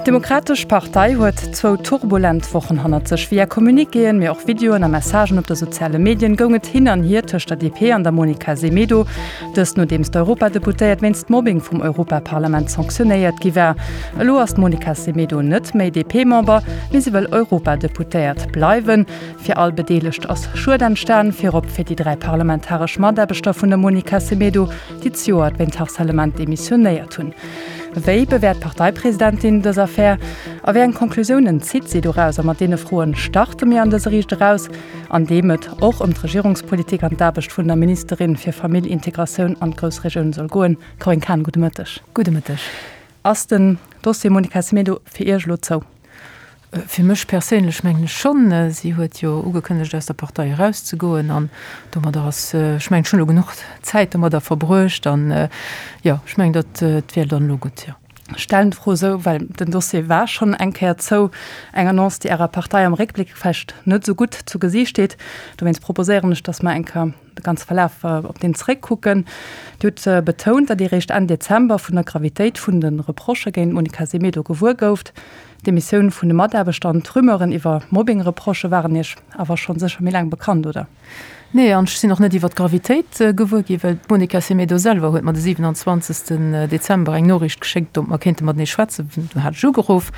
D'Demokratesch Partei huet zwou turbulent Wochen hannert sech. Via Communiquéen, mee och Videoen a Messagen op de soziale Medien goung et hin an hier tëscht der DP an der Monica Semedo. Dëst nodeems d'Europadeputéiert wéinst Mobbing vum Europaparlament sanktionéiert gi war. Elo ass d'Monica Semedo net méi DP-Member, mee si wëll Europadeputéiert bleiwen. Fir all Bedeelegt ass Schued entstan, virop fir déi 3 parlamentaresch Mataarbechter vun der Monica Semedo, déi zejoert wéint Harcèlement demissionéiert hunn. Wéi bewäert d'Parteipresidentin dës Affär a wéi eng Conclusiounen zitt si doraus? A mat deene Froen starte mir an dëse Riicht Eraus, an deem et och ëm d'Regierungspolitik an d'Aarbecht vun der Ministerin fir Famill, Integratioun an d'Groussregioun soll goen. Corinne Cahen, gudde Mëtteg. Gudde Mëtteg. Ass den Dossier Monica Semedo fir Iech elo zou? Fir mech perséinlech mengen ech schonn. Si huet jo ugekënnegt aus der Partei erauszegoen an domadder ass, ech mengen, ech hunn elo genuch Zäit domadder verbruecht an jo, ech mengen, dat wär dann elo gutt, jo. Ech stellen d'Fro esou, well den Dossier war schonn eng Kéier zou. Eng Annonce, déi Ärer Partei am Réckbléck vläicht net esou gutt zu Gesiicht steet. Dowéinst proposéieren ech, datt mer eng Kéier de ganze Verlaf op deen zeréckkucken. Dir hutt betount, datt Dir eréischt Enn Dezember vun der Gravitéit vun de Reprochë géint d'Monica Semedo gewuer gouft. D'Demissioun vun de Mataarbechter an d'Rumeuren iwwer Mobbing-Reprochë waren Iech awer schonn sécher méi laang bekannt, oder? Nee, an ech sinn och net iwwer d'Gravitéit gewuer ginn, well d'Monica Semedo selwer huet mer de 27. Dezember eng Noriicht geschéckt, ob mer kéinte matenee schwätzen. Du hat ech ugeruff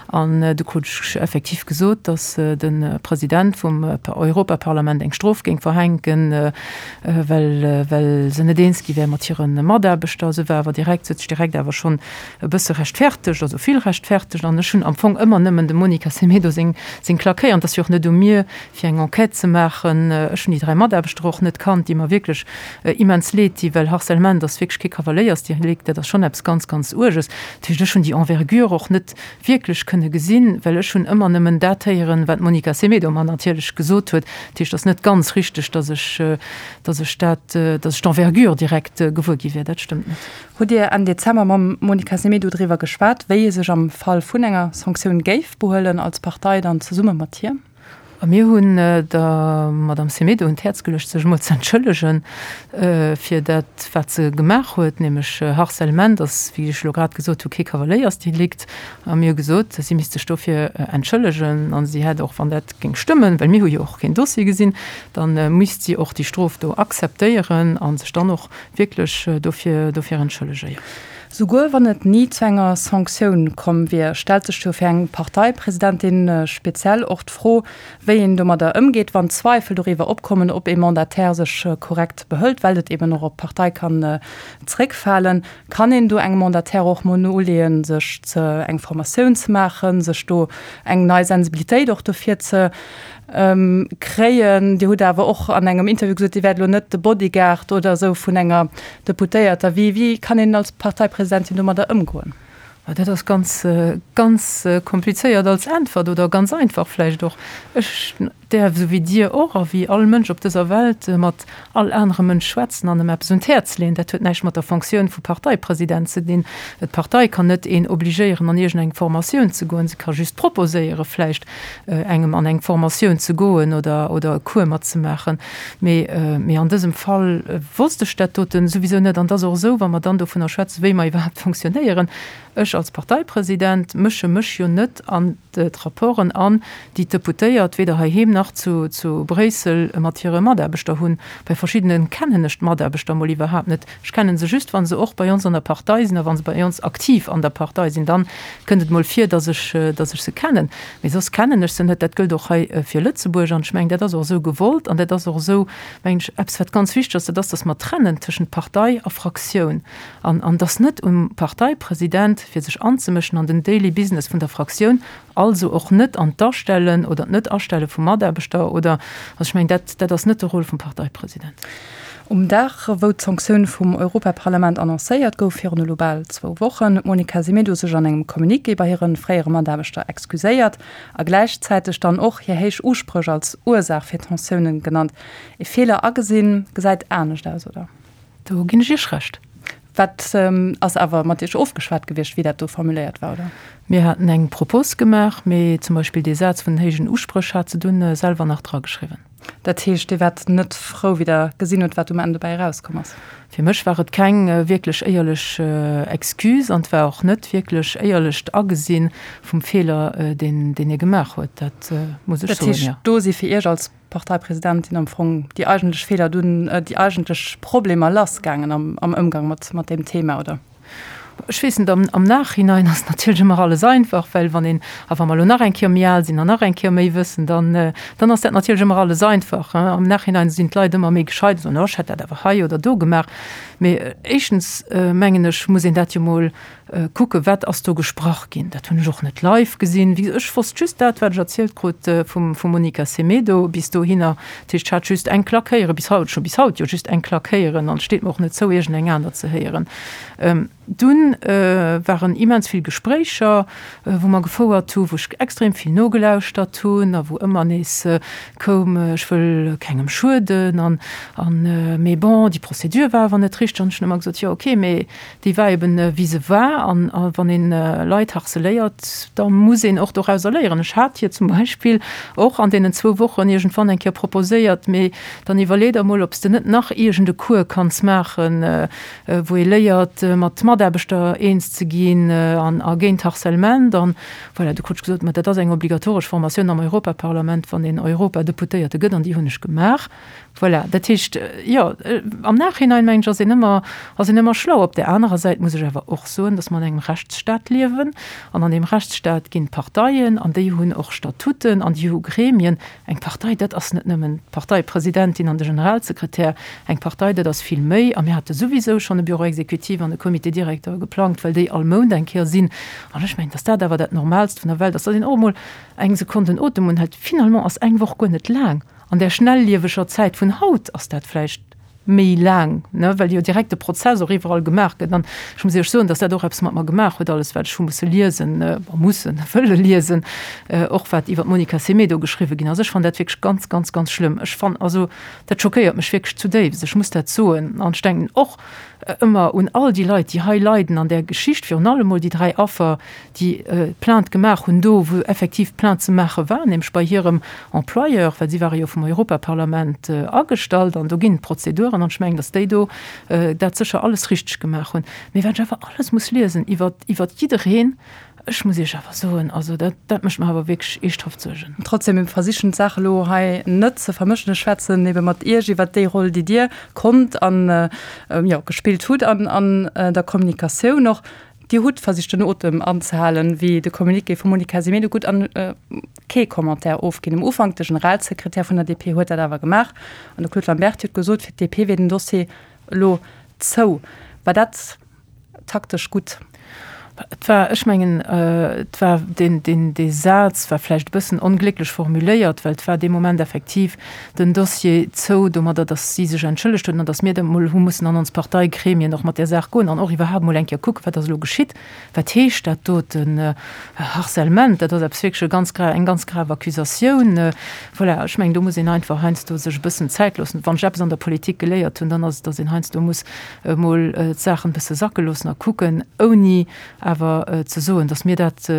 an du krut ech effektiv gesot, datt de President vum Europaparlament eng Strof géing verhänken, well well se net eens gi wär mat hire Mataarbechter. Se war awer direkt, se huet sech direkt awer schonn e bësse rechtfertegt, also vill rechtfertegt, an ech hunn am Fong ëmmer nëmmen dem Monica Semedo seng seng Klack héieren. Et ass jo och net u mir, fir eng Enquête ze maachen. Ech hunn déi 3 Mataarbechter och net kannt, déi mer wierklech immens leed di, well Harcèlement ass wierklech kee Kavaléiersdelikt, dat ass schonn eppes ganz, ganz Uerges. Dat heescht, ech hunn déi Envergure och net wierklech kënne gesinn, well ech hunn ëmmer nëmmen dat héieren, wat d'Monica Semedo mer natierlech gesot huet. Dat heescht, et ass net ganz richteg, datt ech, datt ech dat, datt ech d'Envergure direkt gewuer gi wier. Dat stëmmt net. Hutt Dir Enn Dezember mam Monica Semedo driwwer geschwat, wéi ee sech am Fall vun enger Sanktioun géif behuelen als Partei dann zesumme mat hir? A mir hunn der Madame Semedo un d'Häerz geluecht, sech emol ze entschëllegen fir dat, wat se gemaach huet, nämlech Harcèlement ass, wéi ech elo grad gesot hu, kee Kavaléiersdelikt. A mir hu gesot, si misst sech dofir entschëllegen a si hätt och, wann dat géing stëmmen, well mir hu jo och keen Dossier gesinn, da misst si och déi Strof do akzeptéieren a sech dann och wierklech dofir dofir entschëllege, jo. Souguer wann et ni zu enger Sanktioun komm wier, stellt sech jo fir eng Parteipresidentin speziell och d'Fro, wéi een domadder ëmgeet, wann Zweifel doriwwer opkommen, ob ee Mandataire sech korrekt behëlt, well et eben och op d'Partei kann zréckfalen. Kann een do engem Mandataire och mol noleeën, sech ze eng Formatioun ze maachen, sech do eng nei Sensibilitéit och dofir ze Kréien. Dir hutt awer och an engem Interview gesot, Dir wäert elo net de Bodyguard oder esou vun enger Deputéierter. Wéi, wéi kann een als Parteipresidentin domadder ëmgoen? Dat ass ganz, ganz komplizéiert als Äntwert oder ganz einfach vläicht och. Ech däerf, esou wéi Dir och a wéi all Mënsch op dëser Welt, mat all anerem Mënsch schwätzen an em eppes un d'Häerz leeën. Dat huet näischt mat der Fonctioun vu Parteipresident ze dinn. D'Partei kann net een obligéieren, an iergendeng Formatioun ze goen. Se ka just proposéiere vläicht, engem an eng Formatioun ze goen oder oder e Cours matzemaachen. Mee mee an dësem Fall wosst ech dat doten souwisou net. An et ass och esou, wa mer dann dovunner schwätzen, wéi mer iwwerhaapt fonctionnéieren, ech als Parteipresident mësche mech jo net an d'Rapporten an, déi d'Deputéiert weder heiheem nach zu zu Bréissel mat hire Mataarbechter hunn. Bei verschiddene kennen ech d'Mataarbechter mol iwwerhaapt net. Ech kennen se just, wa se och bei ons an der Partei sinn a wa se bei ons aktiv an der Partei sinn. Dann kënnt et mol vir, dass ech, dass ech se kennen. Mee soss kennen ech se net. Dat gëllt och hei fir Lëtzebuerg. An ech mengen, dat ass och esou gewollt an dat ass och esou, mengen ech, eppes, wat ganz wichteg ass, dat ass, dass mer trennen tëschent Partei a Fraktioun an, an dass net um Parteipresident, fir sech anzemëschen an den Daily Business vun der Fraktioun, also och net an d'Astellen oder d'Net-Astelle vu Mataarbechter oder, also ech mengen, dat, dat ass net de Rôle vum Parteipresident. Um Dag, wou d'Sanktioun vum Europaparlament annoncéiert gouf, virun elo bal zwou Wochen, huet d'Monica Semedo sech an engem Communiqué bei hire fréiere Mataarbechter excuséiert a gläichzäiteg dann och hir héich Uspréch als Ursaach fir d'Tensiounen genannt. Ee Feeler agesinn, gesäit anescht aus, oder? Do ginn ech Iech Recht. Wat ass awer mat Iech ofgeschwat gewiescht, wéi dat do formuléiert war, oder? Mir haten eng Propos gemaach, mee zum Beispill dee Saz vun den héijen Uspréch hat se dunn selwer nach drageschriwwen. Dat heescht, Dir waart net frou, wéi Der gesinn hutt, wat um Enn dobäi erauskomm ass? Fir mech war et keng wierklech éierlech Excuse an et war och net wierklech éierlecht Agesinn vum Feeler, deen deen ee gemaach huet. Dat muss ech soen, jo. Dat heescht, do si fir Iech als Parteipresidentin am Fong déi eigentlech Feeler dunn, déi eigentlech Problemer lassgaangen am am Ëmgang mat mat deem Thema, oder? Ech weess net, am am Nachhinein ass natierlech ëmmer alles einfach, well wann een, a wa mer elo nach eng Kéier méi al sinn an nach eng Kéier méi wëssen, dann, dann ass dat natierlech ëmmer alles einfach. Am Nachhinein sinn d'Leit ëmmer méi gescheit an soen, oh ech hätt dat awer hei oder do gemaach. Mee éischtens mengen ech, muss een dat jo mol kucken, wat ass do gesprach ginn. Dat hunn ech och net live gesinn. Wéi gesot, ech wosst just dat, wat ech erzielt krut vum vum Monica Semedo bis dohinner. Dat heescht, ech hat just eng Klack héieren, bis haut, ech hu bis haut jo just eng Klack héieren an et steet mer och net zou, iergendeng aner ze héieren. Dunn waren immens vill Gespréicher, wou mer gefouert hu, wou ech extrem vill nogelauschtert hunn a wou ëmmer nees koum, ech wëll kengem schueden an, an, mee bon, déi Procédure war awer net richteg. An ech hunn ëmmer gesot, jo okay, mee déi war eben wéi se war an wann een Leit harceléiert, da muss een och dorauser léieren. Ech hat hir zum Beispill och an deenen zwou Wochen iergendwann eng Kéier proposéiert, mee dann iwwerlee der mol, ob s de net nach iergend e Cours kanns maachen, wou ee léiert mat Mataarbechter eens ze ginn an a géint Harcèlement. An voilà, du krut ech gesot, ma dat ass eng obligatoresch Formatioun am Europaparlament, wann een Europadeputéierte gëtt an déi hunn ech gemaach. Voilà, dat heescht, jo, am Nachhinein, mengen ech, ass een ëmmer, ass een ëmmer schlau. Op där anerer Säit muss ech awer och soen, datt mer an engem Rechtsstaat liewen. An an deem Rechtsstaat ginn d'Parteien an déi hunn och Statuten an déi hu Gremien. Eng Partei, dat ass net nëmmen d'Parteipresidentin an de Generalsekretär. Eng Partei, dat ass vill méi. A mir hate souwisou schonn e Bureau exécutif an e Comité directeur geplangt, well déi all Mount eng Kéier sinn. An ech mengen, datt dat awer dat Normaalst vun der Welt ass, datt een och emol eng Sekonn den Otem unhält. Finalement ass eng Woch guer net laang. An där schnellieweger Zäit vun haut ass dat vläicht méi laang, ne, well jo direkt de Prozess och iwwerall gemaach gëtt. An ech muss Iech soen, datt dat och eppes mat mer gemaach huet, alles wat ech hu musse liesen, bon, mussen, wëlle liesen, och wat iwwer d'Monica Semedo geschriwwe ginn ass. Ech fannen dat wierklech ganz, ganz, ganz schlëmm. Ech fannen, also dat schockéiert mech wierklech zudéifst, ech muss dat soen. An ech denken och ëmmer un all déi Leit, déi hei leiden an där Geschicht, virun allem mol déi 3 Affer, déi Plainte gemaach hunn, do wou effektiv Plainte ze maache war, nämlech bei hirem Employeur, well si ware jo vum Europaparlament agestallt an do ginn et Prozeduren an ech mengen, datt déi do dat sécher alles richteg gemaach hunn. Mee wat ech awer alles muss liesen iwwer iwwer jiddereen, ech muss Iech awer soen, also dat dat mécht mer awer wierklech eeschthaft Suergen. Trotzdem, mir versichen d'Saach elo hei net ze vermëschen. Ech schwätzen ebe mat Iech iwwert déi Roll, déi Dir konnt an, jo, gespillt hutt an an der Kommunikatioun och. Dir hutt versicht den Otem anzehalen, wéi de Communiqué vum Monica Semedo gutt an kee Commentaire ofginn. Um Ufank, de Generalsekretär vun der DP huet dat awer gemaach an de Claude Lamberty huet gesot, fir d'DP wier den Dossier elo zou. War dat taktesch gutt? Et war, ech mengen, et war deen, deen, dee Saz war vläicht e bëssen onglécklech formuléiert, well et war dee Moment effektiv den Dossier zou domadder, datt si sech entschëllegt huet an datt mir da mol hu mussen an ons Parteigremien och mat där Saach goen an och iwwerhaapt mol eng Kéier kucken, wat ass elo geschitt, wat heescht dat doten, Harcèlement, dat ass eppes wierklech e ganz gra, eng ganz grave Accusatioun. Voilà, ech mengen, do muss een einfach heiansdo sech e bëssen Zäit loossen. Wann ech eppes an der Politik geléiert hunn, dann ass et, datt een heiansdo muss emol d'Saachen e bësse sacke loossen a kucken, ouni awer ze soen, datt mir dat,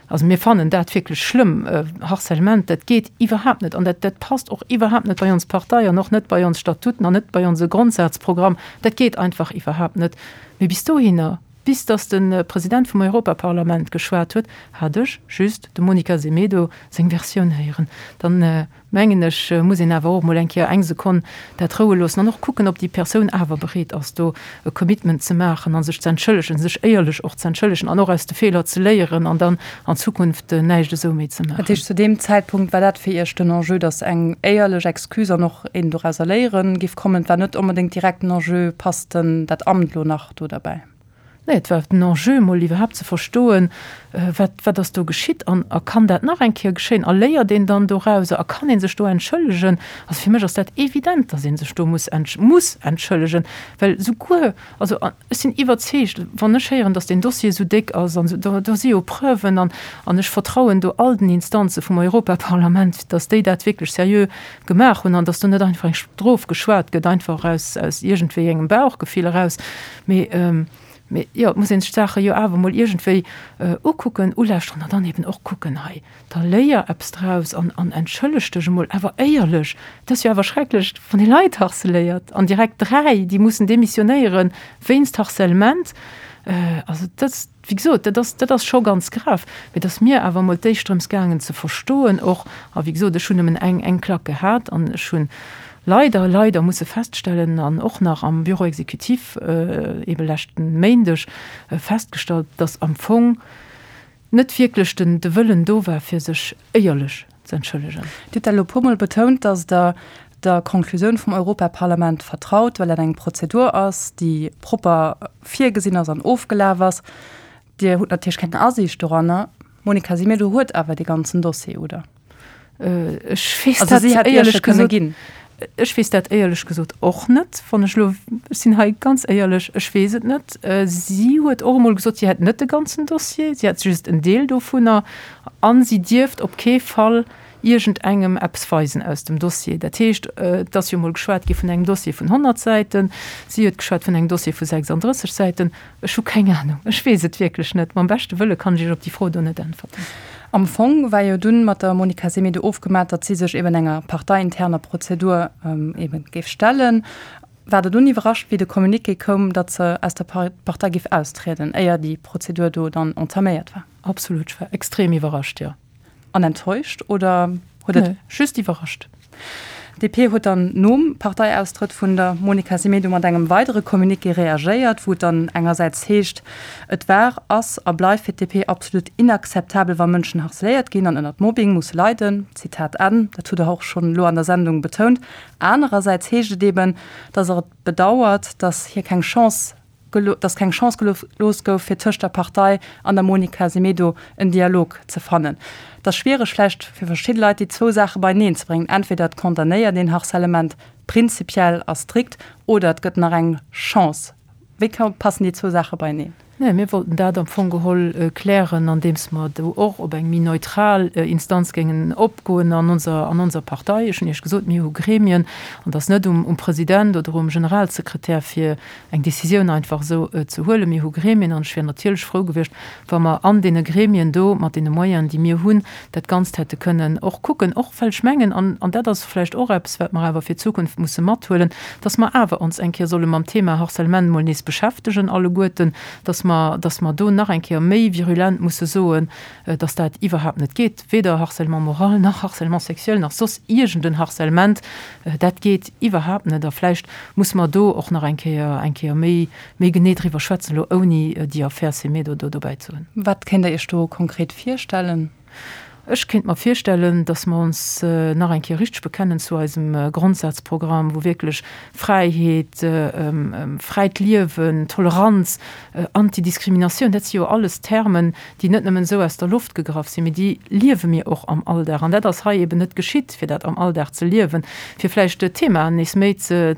Also mir fannen dat wierklech schlëmm. Harcèlement, dat geet iwwerhaapt net an dat, dat passt och iwwerhaapt net bei ons Partei an och net bei ons Statuten an net bei onse Grondsazprogramm. Dat geet einfach iwwerhaapt net. Mee bis dohinner, bis datt de President vum Europaparlament geschwat huet, hat ech just dem Monica Semedo seng Versioun héieren. Dann mengen ech, muss een awer och emol eng Kéier eng Sekonn dat roue loossen an och kucken, ob déi Persoun awer bereet ass, do e Commitment ze maachen a sech ze entschëllegen, sech éierlech och ze entschëllegen an och aus de Feeler ze léieren an dann an Zukunft näischt esou méi ze maachen. Dat heescht, zu deem Zäitpunkt war dat fir Iech den Enjeu, datt eng éierlech Excuse an och een dorauser léieren géif kommen? Et war net onbedéngt direkt den Enjeu, passt denn dat Amt elo nach do derbäi? Nee, et war den Enjeu, emol iwwerhaapt ze verstoen, wat, wat ass do geschitt an a kann dat nach eng Kéier geschéien a léiert een dann dorauser a kann ee sech do entschëllegen. Also fir mech ass dat evident, datt ee sech do muss entsch muss entschëllegen, well souguer, also ech sinn iwwerzeegt, wann ech héieren, datt deen Dossier esou déck ass an esou, do, do si jo Preuven an an ech vertrauen do all den Instanze vum Europaparlament, datt déi dat wierklech seriö gemaach hunn an datt do net einfach eng Strof geschwat gëtt, einfach aus, aus iergendwéi engem Bauchgefill eraus. Mee. Mee jo, et muss ee sech d'Saache jo awer emol iergendwéi ukucken, ulauschteren an dann eben och kucken, hei, da léier eppes draus an an entschëlleg dech emol awer éierlech. Et ass jo awer schrecklech, wann ee Leit harceléiert an direkt 3, déi mussen demissionéiere wéinst Harcèlement. Also dat, wéi gesot, dat ass, dat ass scho ganz grav. Mee et ass mir awer emol d'éischt drëms gaangen ze verstoen och, a wéi gesot, ech hunn nëmmen eng, eng Klack gehat an ech hunn leider, leider musse feststellen an och nach am Bureau exécutif eebe leschten Méindeg festgestallt, datt am Fong net wierklech den, de Wëllen do war, fir sech éierlech ze entschëllegen. Dir hutt dat elo e puermol betount, datt Der der Konklusioun vum Europaparlament vertraut, well dat eng Prozedur ass, déi propper virgesinn ass an ofgelaf ass. Dir hutt natierlech keng Asiicht doranner. D'Monica Semedo huet awer dee ganzen Dossier, oder? Ech weess dat éierlech gesot, ech weess dat éierlech gesot och net. Wann ech elo, ech sinn hei ganz éierlech, ech weess et net. Si huet och emol gesot, si hätt net de ganzen Dossier, si hätt just en Deel dovunner a si dierft op kee Fall iergendengem eppes weisen aus dem Dossier. Dat heescht, et ass jo emol geschwat gi vun engem Dossier vun 100 Säiten, si huet geschwat vun engem Dossier vu 36 Säiten. Ech hu keng Anung, ech weess et wierklech net. Mam beschte Wëlle kann ech Iech op déi Fro do net äntwerten. Am Fong war jo dunn mat der Monica Semedo ofgemat, datt si sech eben enger parteiinterner Prozedur eben géif stellen. War Der dunn iwwerrascht, wéi de Communiqué koum, datt se aus der Partei géif austrieden, éier déi Prozedur do dann entaméiert war? Absolut, ech war extrem iwwerrascht, jo. An enttäuscht oder huet et. Nee, just iwwerrascht. D'DP huet dann nom Parteiaustrëtt vun der Monica Semedo mat engem weidere Communiqué reagéiert, wou et dann engersäits heescht, Et war, ass a bleift fir d'DP absolut inakzeptabel, wa Mënschen harceléiert ginn an ënnert Mobbing musse leiden. Zitat Enn. Dat hutt Der och schonn elo an der Sendung betount. Anerersäits heescht et eben, datt Der et bedauert, datt hir keng Chance dass keng Chance gelooss gouf, fir tëscht der Partei an der Monica Semedo en Dialog ze fannen. Et ass schwiereg vläicht fir verschidde Leit, déi zwou Saache beieneen ze bréngen, Entweder et condamnéiert een Harcèlement prinzipiell a strikt oder et gëtt nach eng Chance. Wéi passen déi zwou Saache beieneen? Nee, mir wollten dat am Fong geholl klären, andeems mer do och op eng méi neutral Instanz géingen opgoen an onser, an onser Partei. Ech hunn Iech gesot, mir hu Gremien an et ass net um, um President oder um Generalsekretär, fir eng Décisioun einfach esou ze huelen. Mir hu Gremien an ech wier natierlech frou gewiescht, wa mer an deene Gremien do mat deene Moyenen, déi mir hunn, dat Ganzt hätte kënnen och kucken. Och well ech mengen, an, an dat ass vläicht och eppes, wat mer awer fir d'Zukunft musse mathuelen, dass mer awer ons eng Kéier solle mam Thema Harcèlement emol nees beschäftegen alleguerten, dass mer, dass mer do nach eng Kéier méi virulent musse soen, dass dat iwwerhaapt net geet, weder Harcèlement moral nach Harcèlement sexuel nach soss iergend en Harcèlement, dat geet iwwerhaapt net. A vläicht musse mer do och nach eng Kéier, eng Kéier méi, méi genee driwwer schwätzen, elo ouni déi Affär Semedo do dobäi ze hunn. Wat kéint Der Iech do konkret virstellen? Ech kéint mer virstellen, dass mer ons nach eng Kéier richteg bekennen zu eisem Grondsazprogramm, wou wierklech Fräiheet, fräit Liewen, Toleranz, Antidiskriminatioun, dat si jo alles Termen, déi net nëmmen esou aus der Loft gegraff sinn, mee déi liewe mir och am Alldag. An dat ass hei eben net geschitt, fir dat am Alldag ze liewen, fir vläicht d'Themaen nees méi ze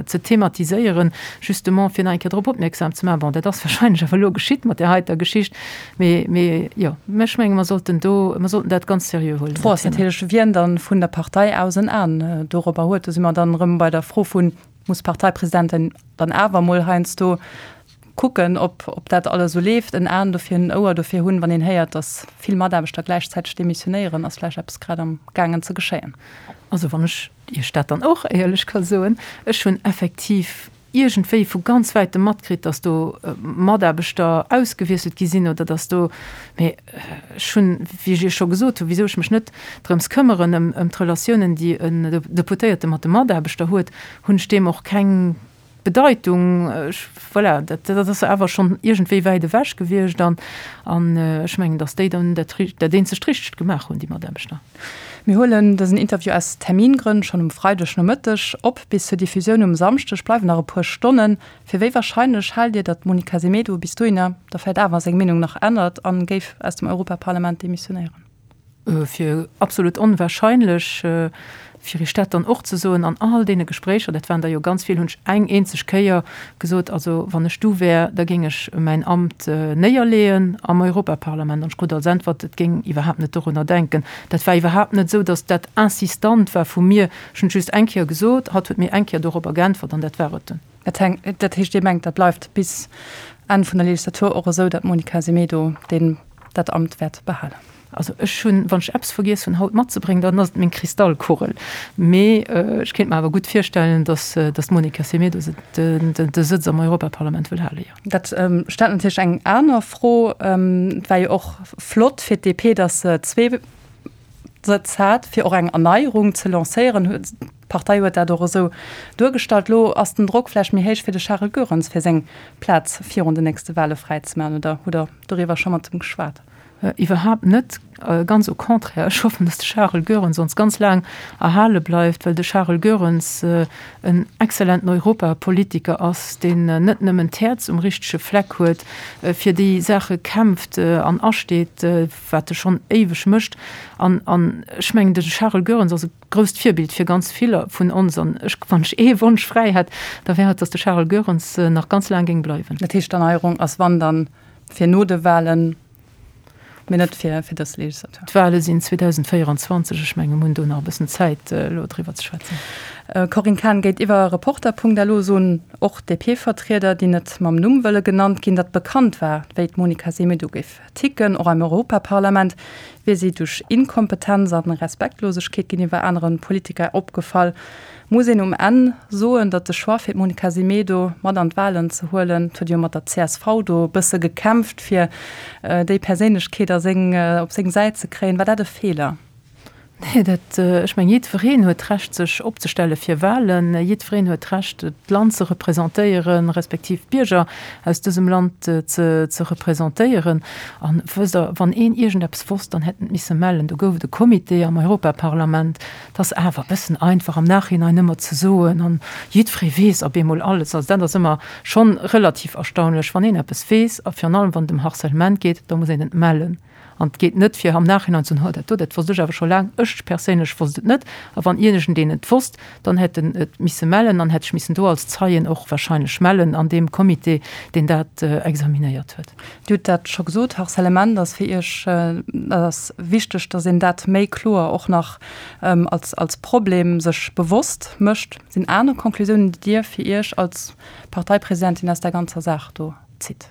thematiséieren, justement fir nach eng Kéier drop opmierksam ze maachen. Bon, dat ass wahrscheinlech awer elo geschitt mat där heiter Geschicht. Mee, mee jo, ech menge mer sollten do, mer sollten dat ganz seriö huelen. D'Fro ass natierlech, wien dann vun der Partei aus en An dorobber huet. Do si mer dann erëm bei der Fro vun, muss d'Parteipresidentin dann awer emol heiansdo kucken, ob, ob dat alles esou leeft, en An dofir hunn, en Ouer dofir hunn, wann een héiert, datt vill Mataarbechter gläichzäiteg demissionéieren, ass vläicht eppes grad am gaangen ze geschéien. Also wann ech Iech dat dann och éierlech ka soen, ech hunn effektiv iergendwéi vu ganz wäitem matkritt, datt do Mataarbechter ausgewiesselt gi sinn oder datt do, mee ech hunn, wéi ech Iech scho gesot hunn, wisou ech mech net drëms këmmeren, ëm ëm d'Relatiounen, déi en Deputéierte mat de Mataarbechter huet, hunn ech deem och keng Bedeitung. Ech, voilà, dat dat ass awer schonn iergendwéi wäit ewech gewiescht an an ech mengen, datt déi dann dat dat eenzegt Richtegt gemaach hunn, déi Mataarbechter. Mir huelen dësen Interview aus Termingrënn schonn um Freideg Nomëtteg op. Bis zur Diffusioun um Samschdeg bleiwen nach e puer Stonnen. Fir wéi warscheinlech haalt Dir, datt d'Monica Semedo bis dohinner da vläicht awer seng Meenung nach ännert a géif aus dem Europaparlament demissionéieren? Fir absolut onwahrscheinlech. Fir Iech dat dann och ze soen, an all deene Gespréicher, dat waren der jo ganz vill, hunn ech eng eenzeg Kéier gesot, also wann ech du wär, da géing ech mäin Amt néierleeën am Europaparlament. An ech krut als Äntwert, et géing iwwerhaapt net dorunner denken. Dat war iwwerhaapt net esou, datt dat insistant war vu mir. Ech hunn et just eng Kéier gesot, hatt huet mir eng Kéier dorobber geäntwert an dat war et dunn. Dat heescht, Dir mengt, dat bleift bis. Enn vun der Legislatur och esou, datt d'Monica Semedo deen dat Amt wäert behalen? Also ech hunn, wann ech eppes vergiess hunn haut matzebréngen, dann ass et meng Kristallkugel. Mee ech kéint mer awer gutt virstellen, datt d'Monica Semedo de Sëtz am Europaparlament wëll halen, jo. Dat stellt natierlech eng aner Fro. Et war jo och flott fir d'DP, datt se zwee Sëtz hat, fir och eng Erneierung ze lancéieren. D'Partei huet dat och esou duergestallt. Elo ass den Drock vläicht méi héich fir de Charel Goerens, fir seng Plaz virun den nächste Wale fräizemaachen. Oder hutt Der doriwwer scho mat em geschwat? Iwwerhaapt net, ganz au contraire. Ech hoffen, datt de Charel Goerens ons ganz laang erhale bleift, well de Charel Goerens en exzellenten Europapolitiker ass, deen net nëmmen d'Häerz um richtege Fleck huet, fir déi Saache kämpft an asteet, wat e schonn éiweg mécht. An ech mengen, de Charel Goerens ass e grousst Virbild fir ganz viller vun ons. An ech, wann ech ee Wonsch fräi hätt, da wär et, datt de Charel Goerens nach ganz laang géing bleiwen. Dat heescht, d'Erneierung ass wann dann fir no de Wahlen, mee net fir fir dës Legislatur. D'Wahle sinn 2024, ech menge mir hunn do nach e bëssen Zäit elo driwwer ze schwätzen. Corinne Cahen, Géintiwwer Reporter.lu soen och DP-Vertrieder, déi net mam Numm wëlle genannt ginn, datt bekannt war, wéi d'Monica Semedo géif ticken. Och am Europaparlament wier si duerch Inkompetenz a Respektlosegkeet géintiwwer anere Politiker opgefall. Muss een um Enn soen, datt de Choix fir d'Monica Semedo mat an d'Wahlen ze huelen, et huet jo mat der csv do e bësse gekämpft fir déi Perséinlechkeet a seng, op seng Säit ze kréien, war dat e Feeler? Nee, dat, ech mengen, jiddwereen huet d'Recht sech opzestelle fir Wahlen, jiddwereen huet d'Recht d'Land ze representéieren, respektiv d'Bierger aus dësem Land ze, ze representéieren. An wësst Der, wann een iergendeppes wosst, dann hätt en et misse mellen. Do gouf et e Comité am Europaparlament, 't ass awer e bëssen einfach am Nachhinein ëmmer ze soen, an jiddweree weess op eemol alles. Also dat ass ëmmer schonn relativ erstaunlech. Wann een eppes weess, a virun allem wann et ëm Harcèlement geet, da muss een et mellen. An et geet net fir am Nachhinein ze soen, oh dat do, dat wosst ech awer scho laang, ech perséinlech wosst et net. A wann iergendeen et wosst, dann hätt en et misse mellen an hätt sech missen do als Zeien och wahrscheinlech mellen an deem Comité, deen dat examinéiert huet. Dir hutt dat scho gesot, Harcèlement ass fir Iech, dat ass wichteg, datt een dat méi kloer och nach als, als Problem sech bewosst mécht. Sinn aner Conclusiounen, déi Dir fir Iech als Parteipresidentin aus där ganzer Saach do zitt?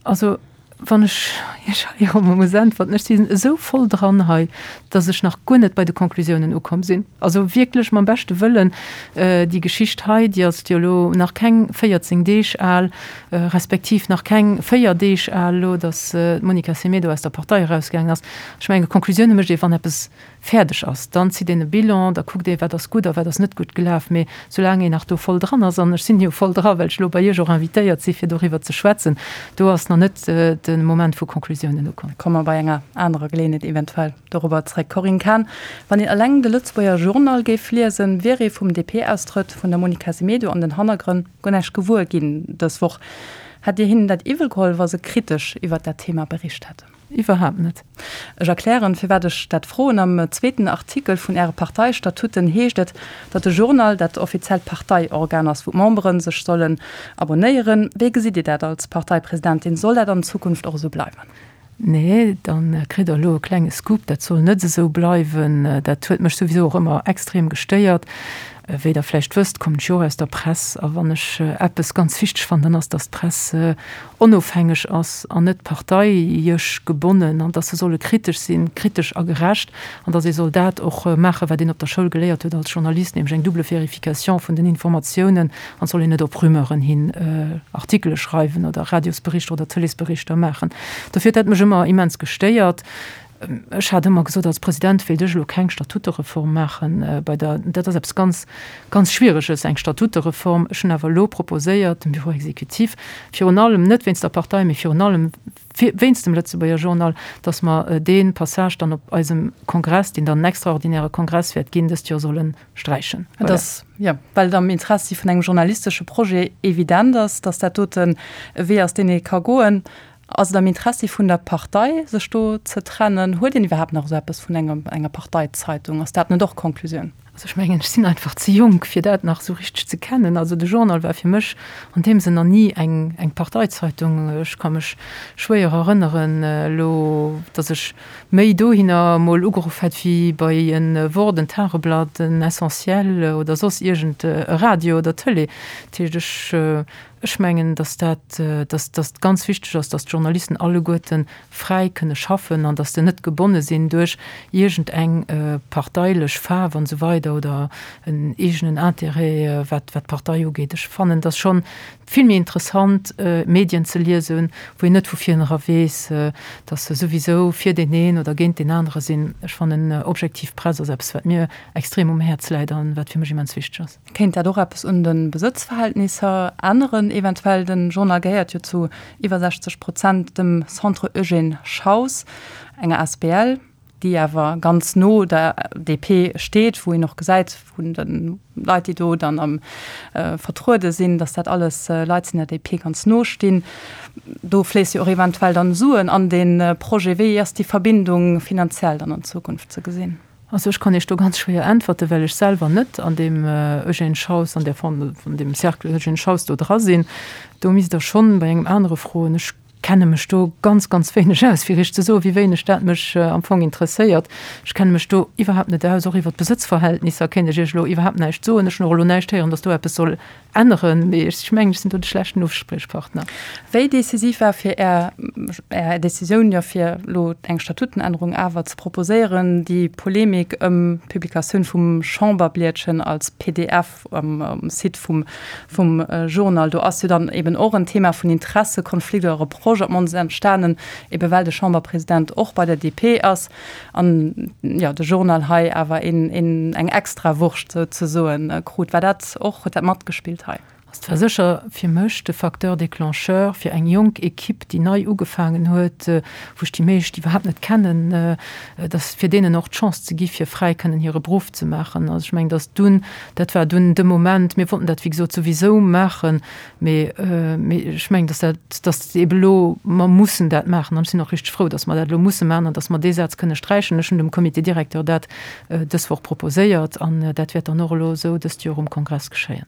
Also, wann ech Iech hei och emol muss äntwerten, ech sinn esou voll dran hei, datt ech nach guer net bei de Conclusiounen ukomm sinn. Also wierklech mam beschte Wëllen, déi Geschicht hei, déi ass jo elo nach keng 14 Deeg al, respektiv nach keng 4 Deeg al elo, datt d'Monica Semedo aus der Partei erausgaangen ass. Ech mengen, Conclusioune mécht ee wann eppes fäerdeg ass. Dann zitt een e Bilan, da kuckt ee wat ass gutt a wat ass net gutt gelaf. Mee soulaang een nach do voll dran ass, an ech sinn jo voll dra well ech elo bei Iech och invitéiert si fir doriwwer ze schwätzen, do ass nach net de Moment vu Conclusiounen ukomm. Komme mer bei enger anerer Geleeënheet eventuell dorobber zréck. Corinne Cahen, Wann een eleng de Lëtzebuerger Journal géif liesen, wier ee vum DP-Austrëtt vun der Monica Semedo an den Hannergrënn guer näischt gewuer ginn dës Woch. Hätt Dir hinnen dat iwwel geholl, wa se kritesch iwwert dat Thema bericht hätten? Iwwerhaapt net. Ech erklären, firwat ech dat froen. Am zweeten Artikel vun Äre Parteistatutten heescht et, datt de Journal dat offiziellt Parteiorgan ass, wou d'Membere sech sollen abonnéieren. Wéi gesitt Dir dat als Parteipresidentin? Soll dat an Zukunft och esou bleiwen? Nee, dann kritt der elo e klenge Scoop, dat soll net esou bleiwen. Dat huet mech souwisou och ëmmer extrem gestéiert. Wéi der vläicht wësst, kommen ech jo och aus der Press a wann ech eppes ganz wichteg fannen, dann ass, datt d'Press onofhängeg ass an net parteiesch gebonnen an datt se solle kritesch sinn, kritesch a gerecht an datt ee soll dat och maachen, wat een op der Schoul geléiert huet als Journalist, nämlech eng double Vérification vun den Informatiounen an et soll een net op Rumeuren hin Artikele schreiwen oder Radiosberichter oder Tëleesberichter maachen. Dofir huet dat mech ëmmer immens gestéiert. Ech hat ëmmer gesot, als President wéilt ech elo keng Statutereform maachen bei der, dat ass eppes ganz, ganz Schwiereges, eng Statutereform. Ech hunn awer elo proposéiert dem Bureau exécutif, virun allem net wéinst der Partei, mee virun allem wéinst dem Lëtzebuerger Journal, datt mer dee Passage dann op eisem Kongress, deen dann en extraordinäre Kongress wäert ginn dëst Joer, solle sträichen. Et ass, jo, well et am Interessi vun engem journalistesche Projet evident ass, datt dat doten e Wee ass, deen ee ka goen. Ass et am Interessi vun der Partei, sech do ze trennen? Huet een iwwerhaapt nach esou eppes vun engem, enger Parteizeitung? Ass dat net och d'Konklusioun? Also ech mengen, ech sinn einfach ze jonk, fir dat nach esou richteg ze kennen. Also de Journal war fir mech an deem Sënn nach ni eng, eng Parteizeitung. Ech ka mech schwéier erënneren elo, datt ech méi dohinner emol ugeruff hätt wéi bei e Wort, en Tageblatt, en Essentiel oder soss iergend e Radio oder Tëlee. Dat heescht, ech. Ech mengen, dass dat, dass dass ganz wichteg ass, dass d'Journalisten alleguerte fräi kënne schaffen an dass se net gebonne sinn duerch iergend eng parteilech Faarf an esou weider oder en eegenen Intérêt, wat wat d'Partei ugeet. Ech fannen, dass schonn vill méi interessant Medien ze liesen, wou een net vu virnera weess, dass se souwisou fir deen een oder géint deen anere sinn. Ech fannen, objektiv Press ass eppes, wat mir extrem um Häerz läit an wat fir mech immens wichteg ass. Kéint dat och eppes un de Besëtzverhältnisser änneren eventuell? Den Journal gehéiert jo zu iwwer 60 Prozent dem Centre Eugène Schaus, enger asbl, déi awer ganz no der DP steet, wou een och gesäit vun de Leit, déi do dann am vertruede sinn, datt dat alles Leit sinn, déi der DP ganz no stinn. Do fléisse jo och eventuell dann Suen an dee Projet. Wéi ass déi Verbindung finanziell dann an Zukunft ze gesinn? Also ech kann Iech do ganz schwéier äntwerten, well ech selwer net an deem Eugène Schaus, an där Fond, an deem Cercle Eugène Schaus do dra sinn. Do misst Der schonn bei engem anere froen. Ech kenne mech do ganz, ganz wéineg aus, fir Iech ze soen, wéi wéineg dat mech am Fong interesséiert. Ech kenne mech do iwwerhaapt net aus. Och iwwer d'Besëtzverhältnisser kéint ech Iech elo iwwerhaapt näischt soen. Ech hunn och elo näischt héieren, datt do eppes soll Änneren, mee ech mengen, ech sinn do de schlechten Uspriechpartner. Wéi decisiv war fir Är, Är Decisioun, jo fir elo eng Statutenännerung awer ze proposéieren, déi Polemik ëm d'Publikatioun vum Chamberblietchen als pdf um Site vum, vum Journal? Do ass jo dann eben och en Thema vun Interessekonflikt oder Reproche op d'mannst entstanen, ebe well de Chamberpresident och bei der DP ass. An jo, de Journal hei awer een, een, eng Extrawurscht souzesoen krut. War dat och, huet dat matgespillt hei? Et war sécher fir mech de Facteur déclencheur fir eng jonk Equipe, déi nei ugefaangen huet, wou ech déi meescht iwwerhaapt net kennen, dass fir deenen och d'Chance ze gi fir fräi kënnen hire Beruff ze maachen. Also ech mengen, dass dunn, dat war dunn de Moment, mir wollten dat wéi gesot souwisou maachen, Mee, mee ech mengen, dass dat, dass eebe elo, mer mussen dat maachen an ech sinn och richteg frou, dass mer dat elo musse maachen an dass mer dee Saz kënne sträichen. Ech hunn dem Comité directeur dat dës Woch proposéiert an dat wäert dann och elo esou dëst Joer um Kongress geschéien.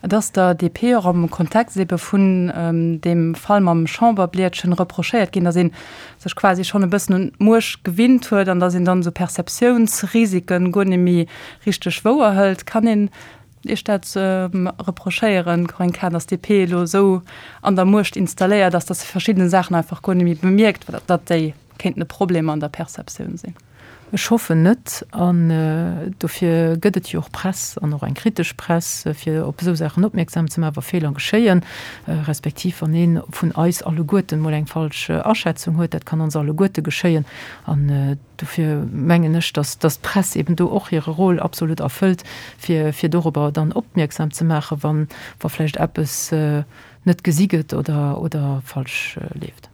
Et ass der DP och am Kontext eebe vun deem Fall mam Chamberblietchen reprochéiert ginn, dass ee sech quasi schonn e bëssen un d'Muecht gewinnt huet an dass een dann esou Perceptiounsrisiken guer net méi richteg wouerhëlt. Kann een Iech dat reprochéieren, Corinne Cahen, datt d'DP elo esou an der Muecht installéiert ass, datt se verschidde Saachen einfach guer net méi bemierkt, datt déi kéinten e Problem an der Perceptioun sinn? Ech hoffen net. An dofir gëtt et jo och Press an och eng kritesch Press, fir op esou Saachen opmierksam ze maachen, wa Feeler geschéien, respektiv wann ee vun eis alleguerten emol eng falsch Aschätzung huet. Dat kann ons alleguerte geschéien. An Dofir mengen ech, dass d'Press eben do och hire Rôle absolut erfëllt, fir, fir dorobber dann opmierksam ze maachen, wann, wa vläicht eppes net gesi gëtt oder, oder falsch leeft.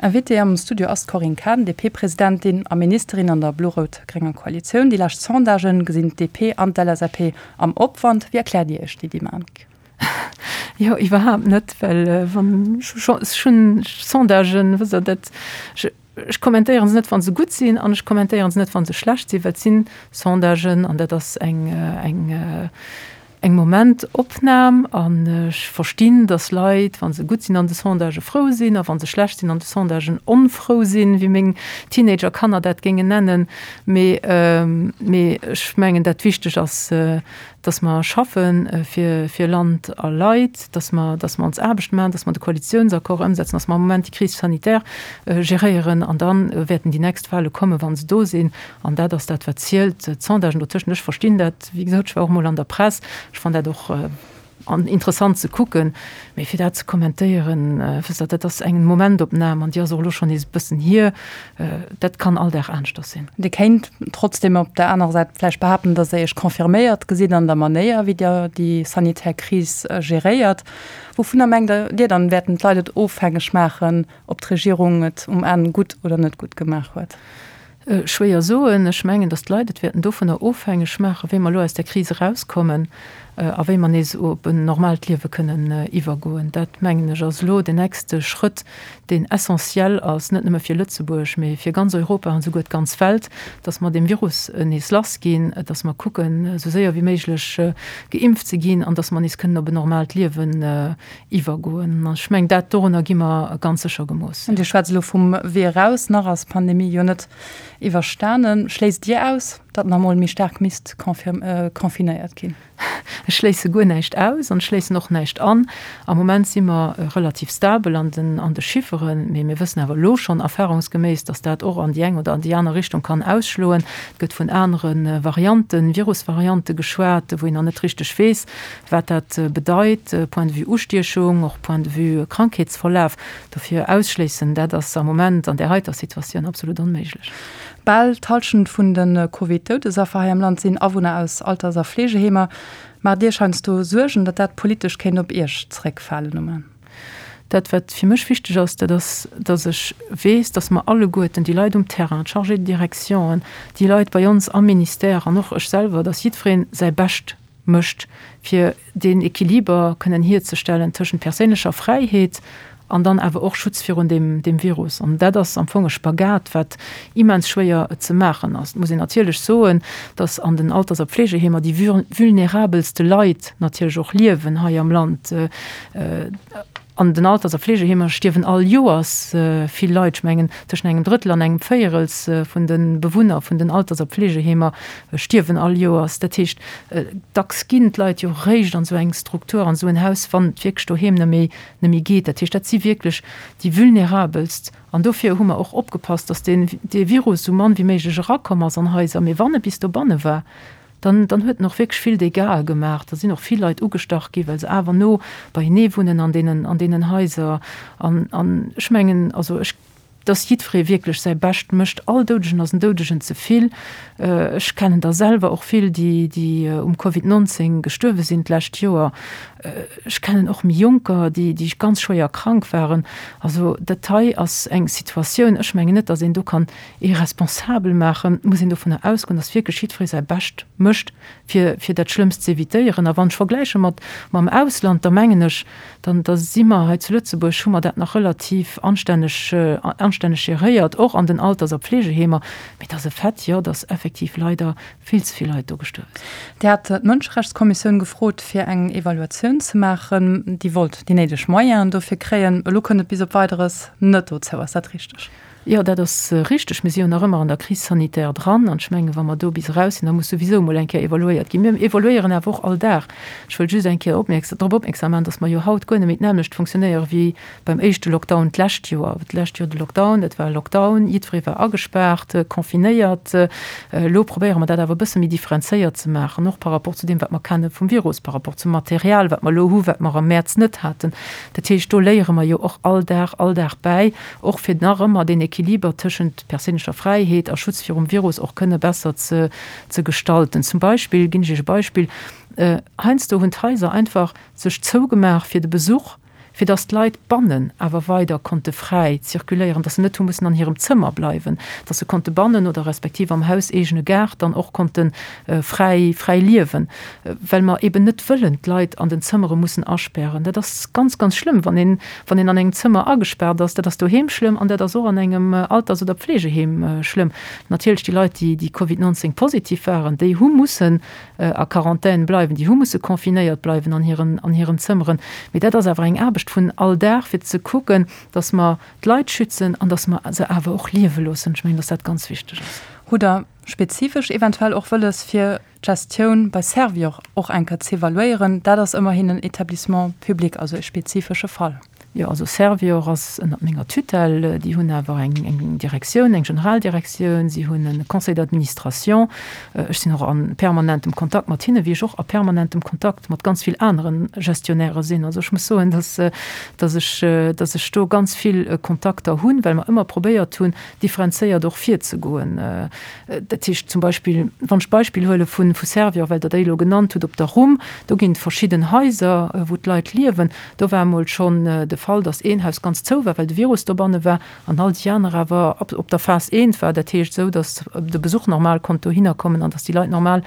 Invitée am Studio ass d'Corinne Cahen, DP-Presidentin a Ministerin an der blo-rout-grénger Koalitioun. Déi lescht Sondagen gesinn d'DP an d'LSAP am Opwand. Wéi erkläert Dir Iech déi Dynamik? Jo, iwwerhaapt net, well wann ech hunn Sondagen, wësst Der, dat, Ech kommentéieren se net, wa se gutt sinn, an ech kommentéieren se net, wa se schlecht sinn, well et si Sondagen an dat ass eng, eng, eng Momentopnam. An ech verstinn, datt Leit, wa se gutt sinn an de Sondagë frou sinn a wa se schlecht sinn an de Sondagen onfrou sinn, wéi meng Teenager-Kanner dat géingen nennen. Mee, mee ech mengen, dat wichteg ass, dass mer schaffe fir, fir Land a Leit, dass mer, dass mer ons Aarbecht maachen, dass mer de Koalitionsaccord ëmsetzen, dass mer am Moment déi Crise sanitaire geréieren an da wäerten déi nächst Wahle kommen, wa se do sinn. An dat ass dat, wat zielt. D'Sondagen dotëschent, ech verstinn dat, wéi gesot, ech war och emol an der Press, ech fannen dat och interessant ze kucken, mee fir dat ze kommentéieren, wësst Der, dat ass eng Momentopnam an déi ass och elo schonn nees e bëssen hier. Dat kann all Dag aneschters sinn. Dir kéint trotzdeem op der anerer Säit vläicht behaapten, datt Der Iech confirméiert gesitt an der Manéier, wéi Dir déi sanitär Kris geréiert. Wouvunner mengt Dir dann, wäerten d'Leit et ofhängeg maachen, ob d'Regierung et um Enn gutt oder net gutt gemaach huet? Schwéier soen. Ech mengen, datt d'Leit et wäerten dovunner ofhängeg maachen, wéi mer elo aus där Kris erauskommen a wéi mer nees op en normaalt Liewe kënnen iwwergoen. Dat, mengen ech, ass elo den nächste Schrëtt, deen essentiell ass, net nëmme fir Lëtzebuerg, mee fir ganz Europa an esouguer d'ganz Welt, dass mer deem Virus nees lass ginn, dass mer kucken, esou séier wéi méiglech geimpft ze ginn an dass mer nees kënnen op en normaalt Liewen iwwergoen. An ech mengen, dat, dorunner gi mer ganz sécher gemooss. Dir schwätzt elo vum Wee eraus. Nach ass d'Pandemie jo net iwwerstanen. Schléisst Dir aus, datt nach emol méi staark misst confinéiert ginn? Ech schléisse guer näischt aus an ech schléissen och näischt an. Am Moment si mer relativ stabel an den an de Chifferen, mee mir wëssen awer elo schonn erfahrungsgeméiss, datt dat och an déi eng oder an déi aner Richtung kann ausschloen. Et gëtt vun anere Varianten, Virusvariante geschwat, wou een nach net richteg weess, wat dat bedeit, point de vue Ustiechung, och point de vue Krankheetsverlaf. Dofir ausschléissen, dat ass am Moment an där heiter Situatioun absolut onméiglech. Bal d'Hallschent vun de Covid-Doudesaffer hei am Land sinn Awunner aus Alters a Fleegeheemer. Maacht Iech heiansdo Suergen, datt dat politesch kéint op Iech zeréckfalen um Enn? Dat, wat fir mech wichteg ass, dat ass, datt ech weess, datt mer alleguerten, déi Leit um Terrain, d'Chargés de directionen, déi Leit bei ons am Ministère an och ech selwer, datt jiddweree säi Bescht mécht, fir deen Equiliber kënnen hierzestellen tëschent perséinlecher Fräiheet an dann awer och Schutz virun deem, deem Virus. An dat ass am Fong e Spagat, wat immens schwéier ze maachen ass. Et muss een natierlech soen, dass an den Alters a Pflegeheemer déi vulnerabelste Leit natierlech och liewen hei am Land. An den Alters a Fleegeheemer stierwen all Joers vill Leit. Ech mengen, tëschent engem Drëttel an engem Véierels vun de Bewunner vun den Alters a Pflegeheemer stierwen all Joers. Dat heescht, dacks ginn d'Leit jo eréischt an esou eng Struktur, an esou en Haus, wann et wierklech doheem net méi, net méi geet. Dat heescht, dat si wierklech déi Vulnerabelst. An dofir hu mer och opgepasst, datt deen, dee Virus esou mann wéi méiglech erakomm ass an Haiser. Mee wann e bis dobanne war, Dann, dann huet en och wierklech vill Dégâtsë gemaach. Da sinn och vill Leit ugestach gi well se awer no beienee wunnen an deenen, an deenen Haiser. An, an ech mengen, also ech, dass jiddweree wierklech säi Bescht mécht. All Doudegen ass en Doudegen ze vill. Ech kennen der selwer och vill, déi, déi um Covid 19 gestuerwe sinn d'lescht Joer. Ech kennen och méi Jonker, déi, déi ganz schwéier krank waren. Also dat hei ass eng Situatioun, ech mengen net, dass een do kann ee responsabel maachen, muss een dovunner ausgoen, dass wierklech jiddweree säi Bescht mécht, fir, fir dat Schlëmmst ze evitéieren. A wann ech vergläiche mat, mam Ausland, da mengen ech, dann, da si mer hei zu Lëtzebuerg, hu mer dat nach relativ anstänneg, anstänneg geréiert, och an den Alters a Pflegeheemer. Mee et ass e Fait, jo, dass effektiv leider vill ze vill Leit do gestuerwe sinn. Dir hat d'Mënscherechtskommissioun gefrot, fir eng Evaluatioun ze maachen. Déi wollt déi néideg Moyenen dofir kréien. Elo kënnt et bis op Weideres net dozou. Ass dat richteg? Jo, dat ass richteg. Mir si jo nach ëmmer an der Crise sanitaire dran. An ech mengen, wa mer do bis eraus sinn, da muss souwisou emol eng Kéier evaluéiert ginn. Mir evaluéieren awer och all Dag. Ech wëll just eng Kéier opmierks drop opmierksam maachen, dass mer jo haut guer net méi d'nämmlecht funktionéiere wéi beim éischte Lockdown d'lescht Joer. D'lescht Joer de Lockdown, dat war e Lockdown, jiddweree war agespaart, confinéiert. Elo probéiere mer dat awer e bësse méi differenzéiert ze maachen, och par rapport zu deem, wat mer kenne vum Virus, par rapport zum Material, wat mer elo hu, wat mer am Mäerz net haten. Dat heescht, do léiere mer jo och all Dag, all Dag bäi. Och fir nach ëmmer deen Equiliber tëschent perséinlecher Fräiheet a Schutz virum Virus och kënne besser ze ze gestalten. Zum Beispill, ginn ech Iech e Beispill, heiansdo hunn d'Haiser einfach sech zougemaach fir de Besuch, fir datt d'Leit bannen awer weider konnte fräi zirkuléieren, datt se net hu mussen an hirem Zëmmer bleiwen, datt se konnte bannen oder respektiv am hauseegene Gaart dann och konnte fräi fräi liewen, well mer eben net wëllen d'Leit an den Zëmmere mussen aspären. Dat ass ganz, ganz schlëmm, wann een Wann een an engem Zëmmer agespaart ass, dat ass doheem schlëmm an dat ass och an engem Alters oder Pflegeheem schlëmm. Natierlech déi Leit, déi déi Covid 19 positiv waren, déi hu mussen a Quarantän bleiwen, déi hu musse confinéiert bleiwen an hiren an hiren Zëmmeren. Mee dat ass awer eng Aarbecht vun all Dag, fir ze kucken, datt mer d'Leit schützen an datt mer se awer och liewe loossen. Ech mengen, datt dat ganz wichteg ass. Hutt Der spezifesch eventuell och wëlles, fir d'Gestioun bei Servior och eng Kéier z'evaluéieren, dat ass ëmmerhin en Établissement public, also e spezifesche Fall. Jo, also Servior ass ënnert menger Tutelle. Déi hunn awer eng Direktioun, eng Generaldirektioun, si hunn e Conseil d'administration. Ech sinn och a permanentem Kontakt mat hinne, wéi ech och a permanentem Kontakt mat ganz vill anere Gestionnairë sinn. Also ech muss soen, dass, dass ech, dass ech do ganz vill Kontakter hunn, well mer ëmmer probéiert hunn, differenzéiert och virzegoen. Dat heescht zum Beispill, wann ech d'Beispill huele vu Servior, well Der déi elo genannt hutt, op der Rhum, do ginn et verschidden Haiser, wou d'Leit liewen. Do war emol schonn de Fall, datt een Haus ganz zou war, well de Virus dobanne war, an all déi aner awer op der Phas eent war. Dat heescht esou, datt de Besuch normal konnt dohinner kommen an datt déi Leit normal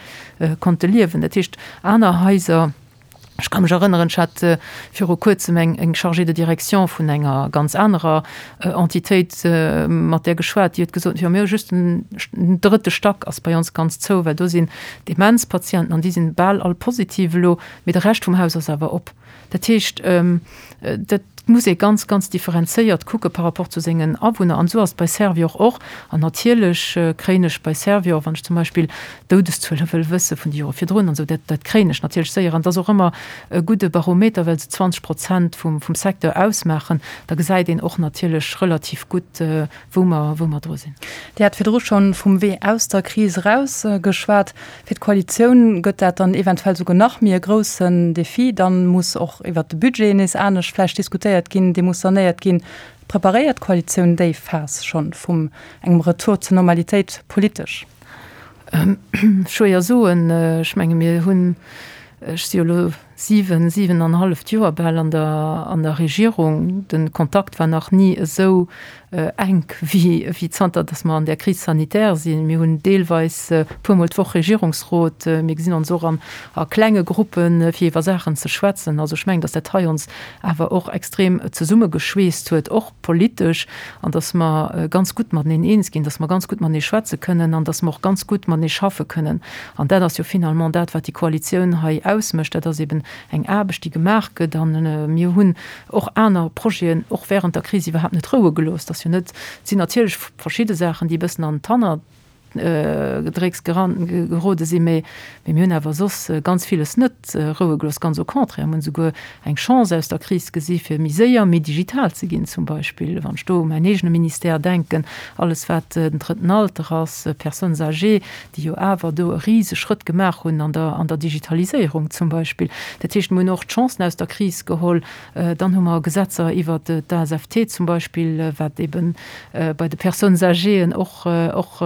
konnte liewen. Dat heescht, aner Haiser, Ech ka mech erënneren, ech hat viru Kuerzem eng, eng Chargée de direction vun enger ganz anerer Entitéit mat där geschwat, déi huet gesot, jo mir hu just den drëtte Stack ass bei ons ganz zou, well do sinn Demenzpatienten an déi sinn bal all positiv elo, mee de Rescht vum Haus ass awer op. Dat heescht, dat. muss ee ganz, ganz differenzéiert kucke par rapport zu sengen Awunner. An esou ass et bei Servior och. An natierlech kréien ech bei Servior, wann ech zum Beispill d'Doudeszuele wëll wësse vun de Jore virdrun an esou, dat, dat kréien ech natierlech séier. An et ass och ëmmer e gudde Barometer, well se 20 Prozent vum, vum Secteur ausmaachen. Da gesäit een och natierlech relativ gutt, wou mer, wou mer dru sinn. Dir hat virdru schonn vum Wee aus der Kris eraus geschwat. Fir d'Koalitioun gëtt dat dann eventuell souguer nach méi e groussen Defi. Dann muss och iwwert de Budget nees anescht vläicht diskutéiert ginn, dee muss sanéiert ginn. Preparéiert d'Koalitioun déi Phas schonn vum engem Retour zur Normalitéit politesch? Schwéier soen. Ech menge mir hunn, ech si jo elo 7, 7 an e halleft Joer bal an der, an der Regierung. De Kontakt war nach ni esou enk wéi, wéi zanter datt mer an där Crise sanitaire sinn. Mir hunn deelweis e puermol d'Woch Regierungsrot. Mir gesinn ons och an a klenge Gruppen, fir iwwer Saachen ze schwätzen. Also ech mengen, datt dat hei ons awer och extrem zesummegeschweesst huet, och politesch, an datt mer ganz gutt mateneen eens ginn, datt mer ganz gutt matenee schwätze kënnen an datt mer och ganz gutt matenee schaffe kënnen. An dat ass jo finalement dat, wat déi Koalitioun hei ausmécht. Dat ass eben eng Aarbecht, déi gemaach gëtt. A mir hunn och aner Projeten och während der Kris iwwerhaapt net roue gelooss. Dat ass jo net, et sinn natierlech verschidde Saachen, déi e bëssen an d'Hanner Gedrécks gerode sinn, mee mir hunn awer soss ganz villes net roue gelooss. Ganz au contraire, mir hunn esouguer eng Chance aus der Kris gesi fir méi séier, méi digital ze ginn, zum Beispill wann ech do u mäin eegene Ministère denken, alles wat den drëtten Alter ass, Personnes âgées, déi jo awer do e rise Schrëtt gemaach hunn an der an der Digitaliséierung zum Beispill. Dat heescht, mir hunn och d'Chancen aus der Kris geholl. Dann hu mer Gesetzer iwwert d'ASFT zum Beispill, wat eebe bei de Personnes âgéen och och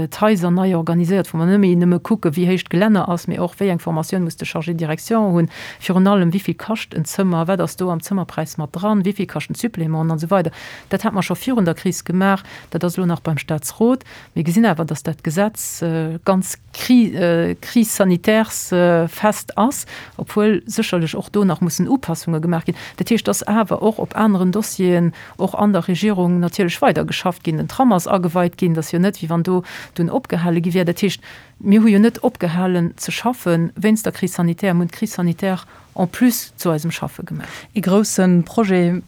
d'Haiser nei organiséiert, wou mer net méi nëmme kucke wéi héich d'Gelänner ass, mee och wéi eng Formatioun muss de Chargé de direction hunn, virun allem wéi vill kascht en Zëmmer, wat ass do am Zëmmerpräis mat dran, wéi vill kaschten d'Supplémenten an esou weider. Dat hat mer scho virun der Kris gemaach, dat ass elo nach beim Statsrot. Mir gesinn awer, datt dat Gesetz ganz Crise sanitaires-fest ass, obwuel sécherlech och do nach mussen Upassunge gemaach ginn. Dat heescht, datt awer och op aneren Dossieren och an der Regierung natierlech weidergeschafft ginn. Den Tram ass ageweit ginn, dat ass jo net, wéi wann do dunn opgehale gi wär. Dat heescht, mir hu jo net opgehalen ze schaffe wéinst der Crise sanitaire, mir hunn d'Crise sanitaire en plus zu eisem Schaffe gemaach. Ee grousse Projet,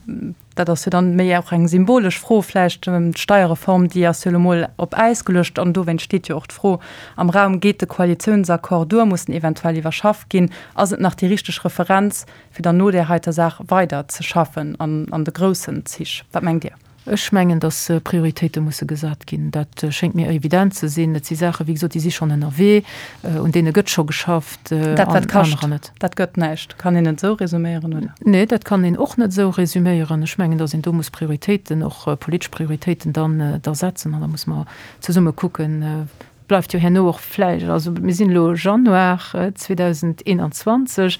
Dat ass jo dann méi och eng symbolesch Fro vläicht. D'Steierreform, déi ass jo elo mol op Äis geluecht an dowéinst steet jo och d'Fro am Raum, Geet de Koalitiounsaccord duer? Muss en eventuell iwwerschafft ginn? Ass et nach déi richteg Referenz, fir dann no där heiter Saach weider ze schaffen an an de groussen Zich? Wat mengt Dir? Ech mengen, datt Prioritéite musse gesat ginn. Dat schéngt mir evident ze sinn. Et si Saachen, wéi gesot, déi si schonn ënnerwee, un deene gëtt scho geschafft. Dat, wat kascht, dat gëtt näischt. Kann een et esou resuméieren, oder? Nee, dat kann een och net esou resuméieren. Ech mengen, datt een do muss Prioritéiten, och politesch Prioritéiten dann da setzen an da muss mer zesumme kucken, bleift jo herno och vläicht, also mir sinn elo Januar 2021,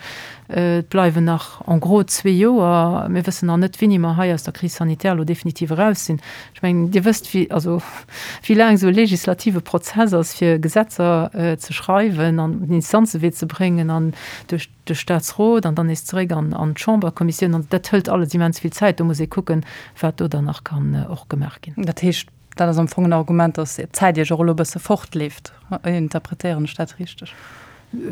et bleiwen nach en gros zwee Joer. Mir wëssen nach net, wéini mer hei aus der Crise sanitaire elo definitiv eraus sinn. Ech mengen, Dir wësst, wéi, also wéi laang esou e legislative Prozess ass, fir Gesetzer ze schreiwen an den Instanzewee ze bréngen an duerch de Statsrot an dann nees zeréck an d'Chamberkommissioun. An dat hëlt alles immens vill Zäit. Do muss ee kucken, wat do dann nach kann och gemaach ginn. Dat heescht, Dat ass am Fong en Argument, datt d'Zäit Iech och elo e bësse fortleeft. Interpretéieren ech dat richteg?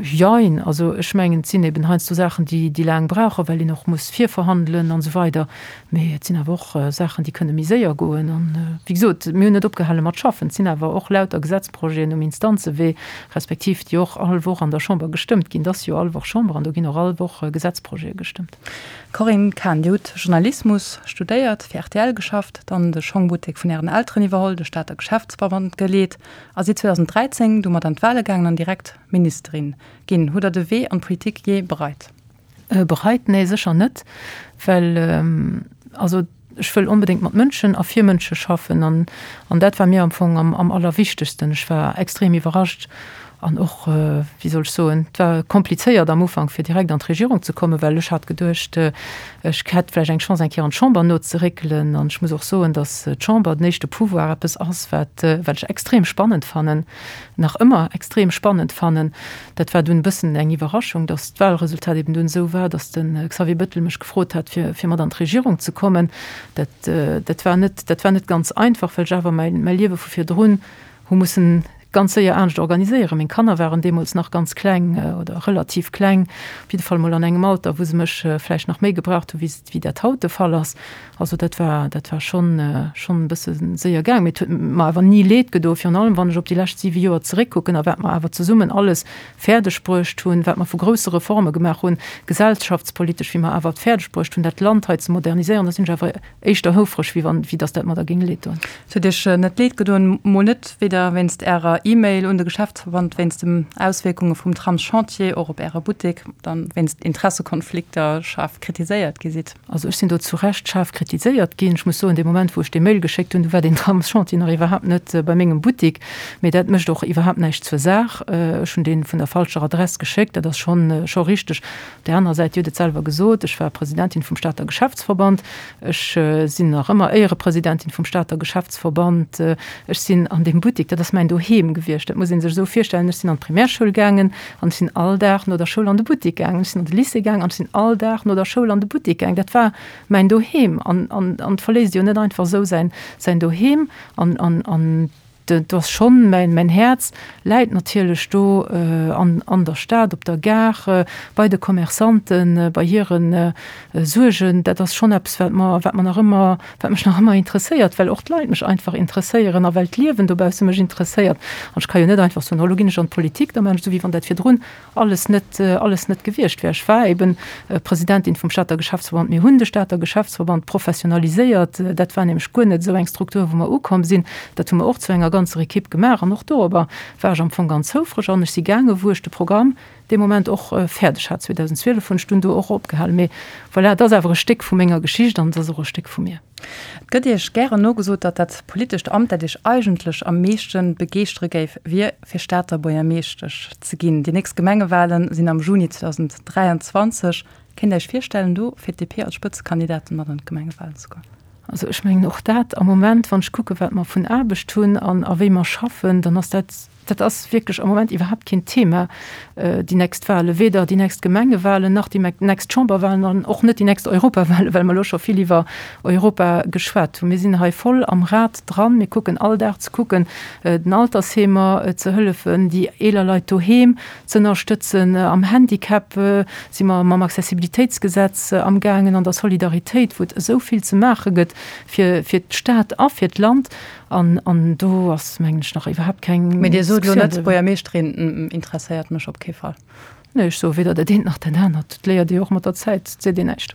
Jein. Also ech mengen, et sinn eben heiansdo Saachen, déi, déi laang brauchen, well een och muss virverhandelen an esou weider. Mee et sinn awer och Saachen, déi kënne méi séier goen. An, wéi gesot, mir hunn net opgehale mat schaffen. Et sinn awer och lauter Gesetzprojeten um Instanzewee, respektiv déi och all Woch an der Chamber gestëmmt ginn. Et ass jo all Woch Chamber an do ginn och all Woch Gesetzprojete gestëmmt. Corinne Cahen, Dir hutt Journalismus studéiert, fir rtl geschafft, dann de Schongbuttek vun Ären Elteren iwwerholl, de Stater Geschäftsverband geleet a sidd 2013 domat an d'Wale gaangen an direkt Ministerin ginn. Hutt Der de Wee an d'Politik jee bereit? Bereit? Nee, sécher net, well also ech wëll onbedéngt mat Mënschen a fir Mënsche schaffen an an dat war mir am Fong am am allerwichtegsten. Ech war extrem iwwerrascht an och, wéi soll ech soen, et war komplizéiert am Ufank fir direkt an d'Regierung ze kommen, well ech hat geduecht, ech hätt vläicht eng Chance eng Kéier an d'Chamber nozeréckelen an ech muss och soen, datt d'Chamber, den éischte Pouvoir, eppes ass wat wat ech extrem spannend fannen, nach ëmmer extrem spannend fannen. Dat war dunn e bëssen eng Iwwerraschung, datt d'Wahlresultat eben dunn esou war, datt de Xavier Bettel mech gefrot hat, fir, fir mat an d'Regierung ze kommen. Dat, dat war net, dat war net ganz einfach, well ech awer mäi, mäi Liewe vu virdrun hu mussen. ganz séier anescht organiséieren. Meng Kanner waren deemools nach ganz kleng oder relativ kleng, op jidde Fall mol an engem Alter, wou se mech vläicht nach méi gebraucht hu wéi wéi dat haut de Fall ass. Also dat war, dat war schonn, schonn e bësse séier gaang. Mee et huet mer awer ni Leed gedo, virun allem wann ech op déi lescht siwe Joer zeréckkucken a wat mer awer zesummen alles fäerdeg bruecht hunn, wat mer vu grousse Reforme gemaach hunn, gesellschaftspolitesch, wéi mer awer et fäerdeg bruecht hunn, dat Land hei ze moderniséieren, da sinn ech awer éischter houfreg, wéi wann, wéi datt dat mer da géing Leed doen. Et huet Iech net Leed gedoen, mol net, weder wéinst Ärer E-Mail un de Geschäftsverband wéinst den Auswierkunge vum Tramschantier och op Äre Buttek, dann wéinst Interessekonflikter schaarf kritiséiert gi sidd? Also ech sinn do zu Recht schaarf kritiséiert ginn. Ech muss soen, dee Moment, wou ech dee Mail geschéckt hunn, du war deen Tramschantier nach iwwerhaapt net bei mengem Buttek. Mee dat mécht och iwwerhaapt näischt zur Saach. Ech hunn dee vun der falscher Adress geschéckt, dat ass schonn, scho richteg. Op där anerer Säit, Dir hutt et selwer gesot, ech war Presidentin vum Stater Geschäftsverband. Ech sinn nach ëmmer Éierepresidentin vum Stater Geschäftsverband. Ech sinn an deem Buttek, dat ass mäin Doheem gewiescht. Dat muss ee sech esou virstellen, Ech sinn an d'Primärschoul gaangen an ech sinn all Dag no der Schoul an de Buttek gaangen. Ech sinn an de Lycée gaangen an ech sinn all Dag no der Schoul an de Buttek gaangen. Dat war mäin Doheem. An, an, an et verléisst jo net einfach esou säin, säin Doheem. An, an, an do ass schonn, mäin, mäin Häerz läit natierlech do an, an der Stad, op der Gare, bei de Commerçanten, bei hire Suergen. Dat ass schonn eppes, wat mer, wat mer nach ëmmer, wat mech nach ëmmer interesséiert, well och d'Leit mech einfach interesséieren a well d'Liewen dobausse mech interesséiert. An ech ka jo net einfach soen, oh lo ginn ech an d'Politik, da maachen ech esou, wéi wann dat virdrun alles net, alles net gewiescht wär. Ech war eben Presidentin vum Stater Geschäftsverband. Mir hunn de Stater Geschäftsverband professionaliséiert. Dat war nämlech guer net esou eng Struktur, wou mer ukomm sinn. Dat hu mer och zu enger ganzer Equipe gemaach an och dorobber war ech am Fong ganz houfreg. An ech si gaange wou ech de Programm dee Moment och fäerdeg hat. 2012 hunn ech dunn do och opgehalen. Mee voilà, et ass awer e Stéck vu menger Geschicht an et ass och e Stéck vu mir. Et gëtt Iech gären nogesot, datt dat politescht Amt, dat Iech eigentlech am meeschte begeeschtere géif, wier, fir Stater Buergermeeschtesch ze ginn. Déi nächst Gemengewale sinn am Juni 2023. Kéint Der Iech virstellen, do fir d'DP als Spëtzekandidatin mat an d'Gemengewalen ze goen? Also ech mengen och dat am Moment, wann ech kucke wat mer vun Aarbecht hunn an a wéi mer schaffen, dann ass dat, Dat ass wierklech am Moment iwwerhaapt keen Thema, déi nächst Wahlen, weder déi nächst Gemengewahlen nach déi nächst Chamberwahlen an och net déi nächst Europawahlen, well mer elo scho vill iwwer Europa geschwat hunn. Mir sinn hei voll am Rad dran. Mir kucken all Dag ze kucken, den Altersheemer ze hëllefen, déi eeler Leit doheem ze ënnerstëtzen. Am Handicap si mer mam Accessibilitéitsgesetz amgaangen, an der Solidaritéit, wou et esou vill ze maache gëtt fir d'Stad a fir d'Land. An, an do ass, mengen ech, nach iwwerhaapt keng Mee Dir sot elo net, Buergermeeschterin interesséiert mech op kee Fall. Nee, ech soe weder dat eent nach dat anert. Dat léiert ee jo och mat der Zäit, et seet een näischt.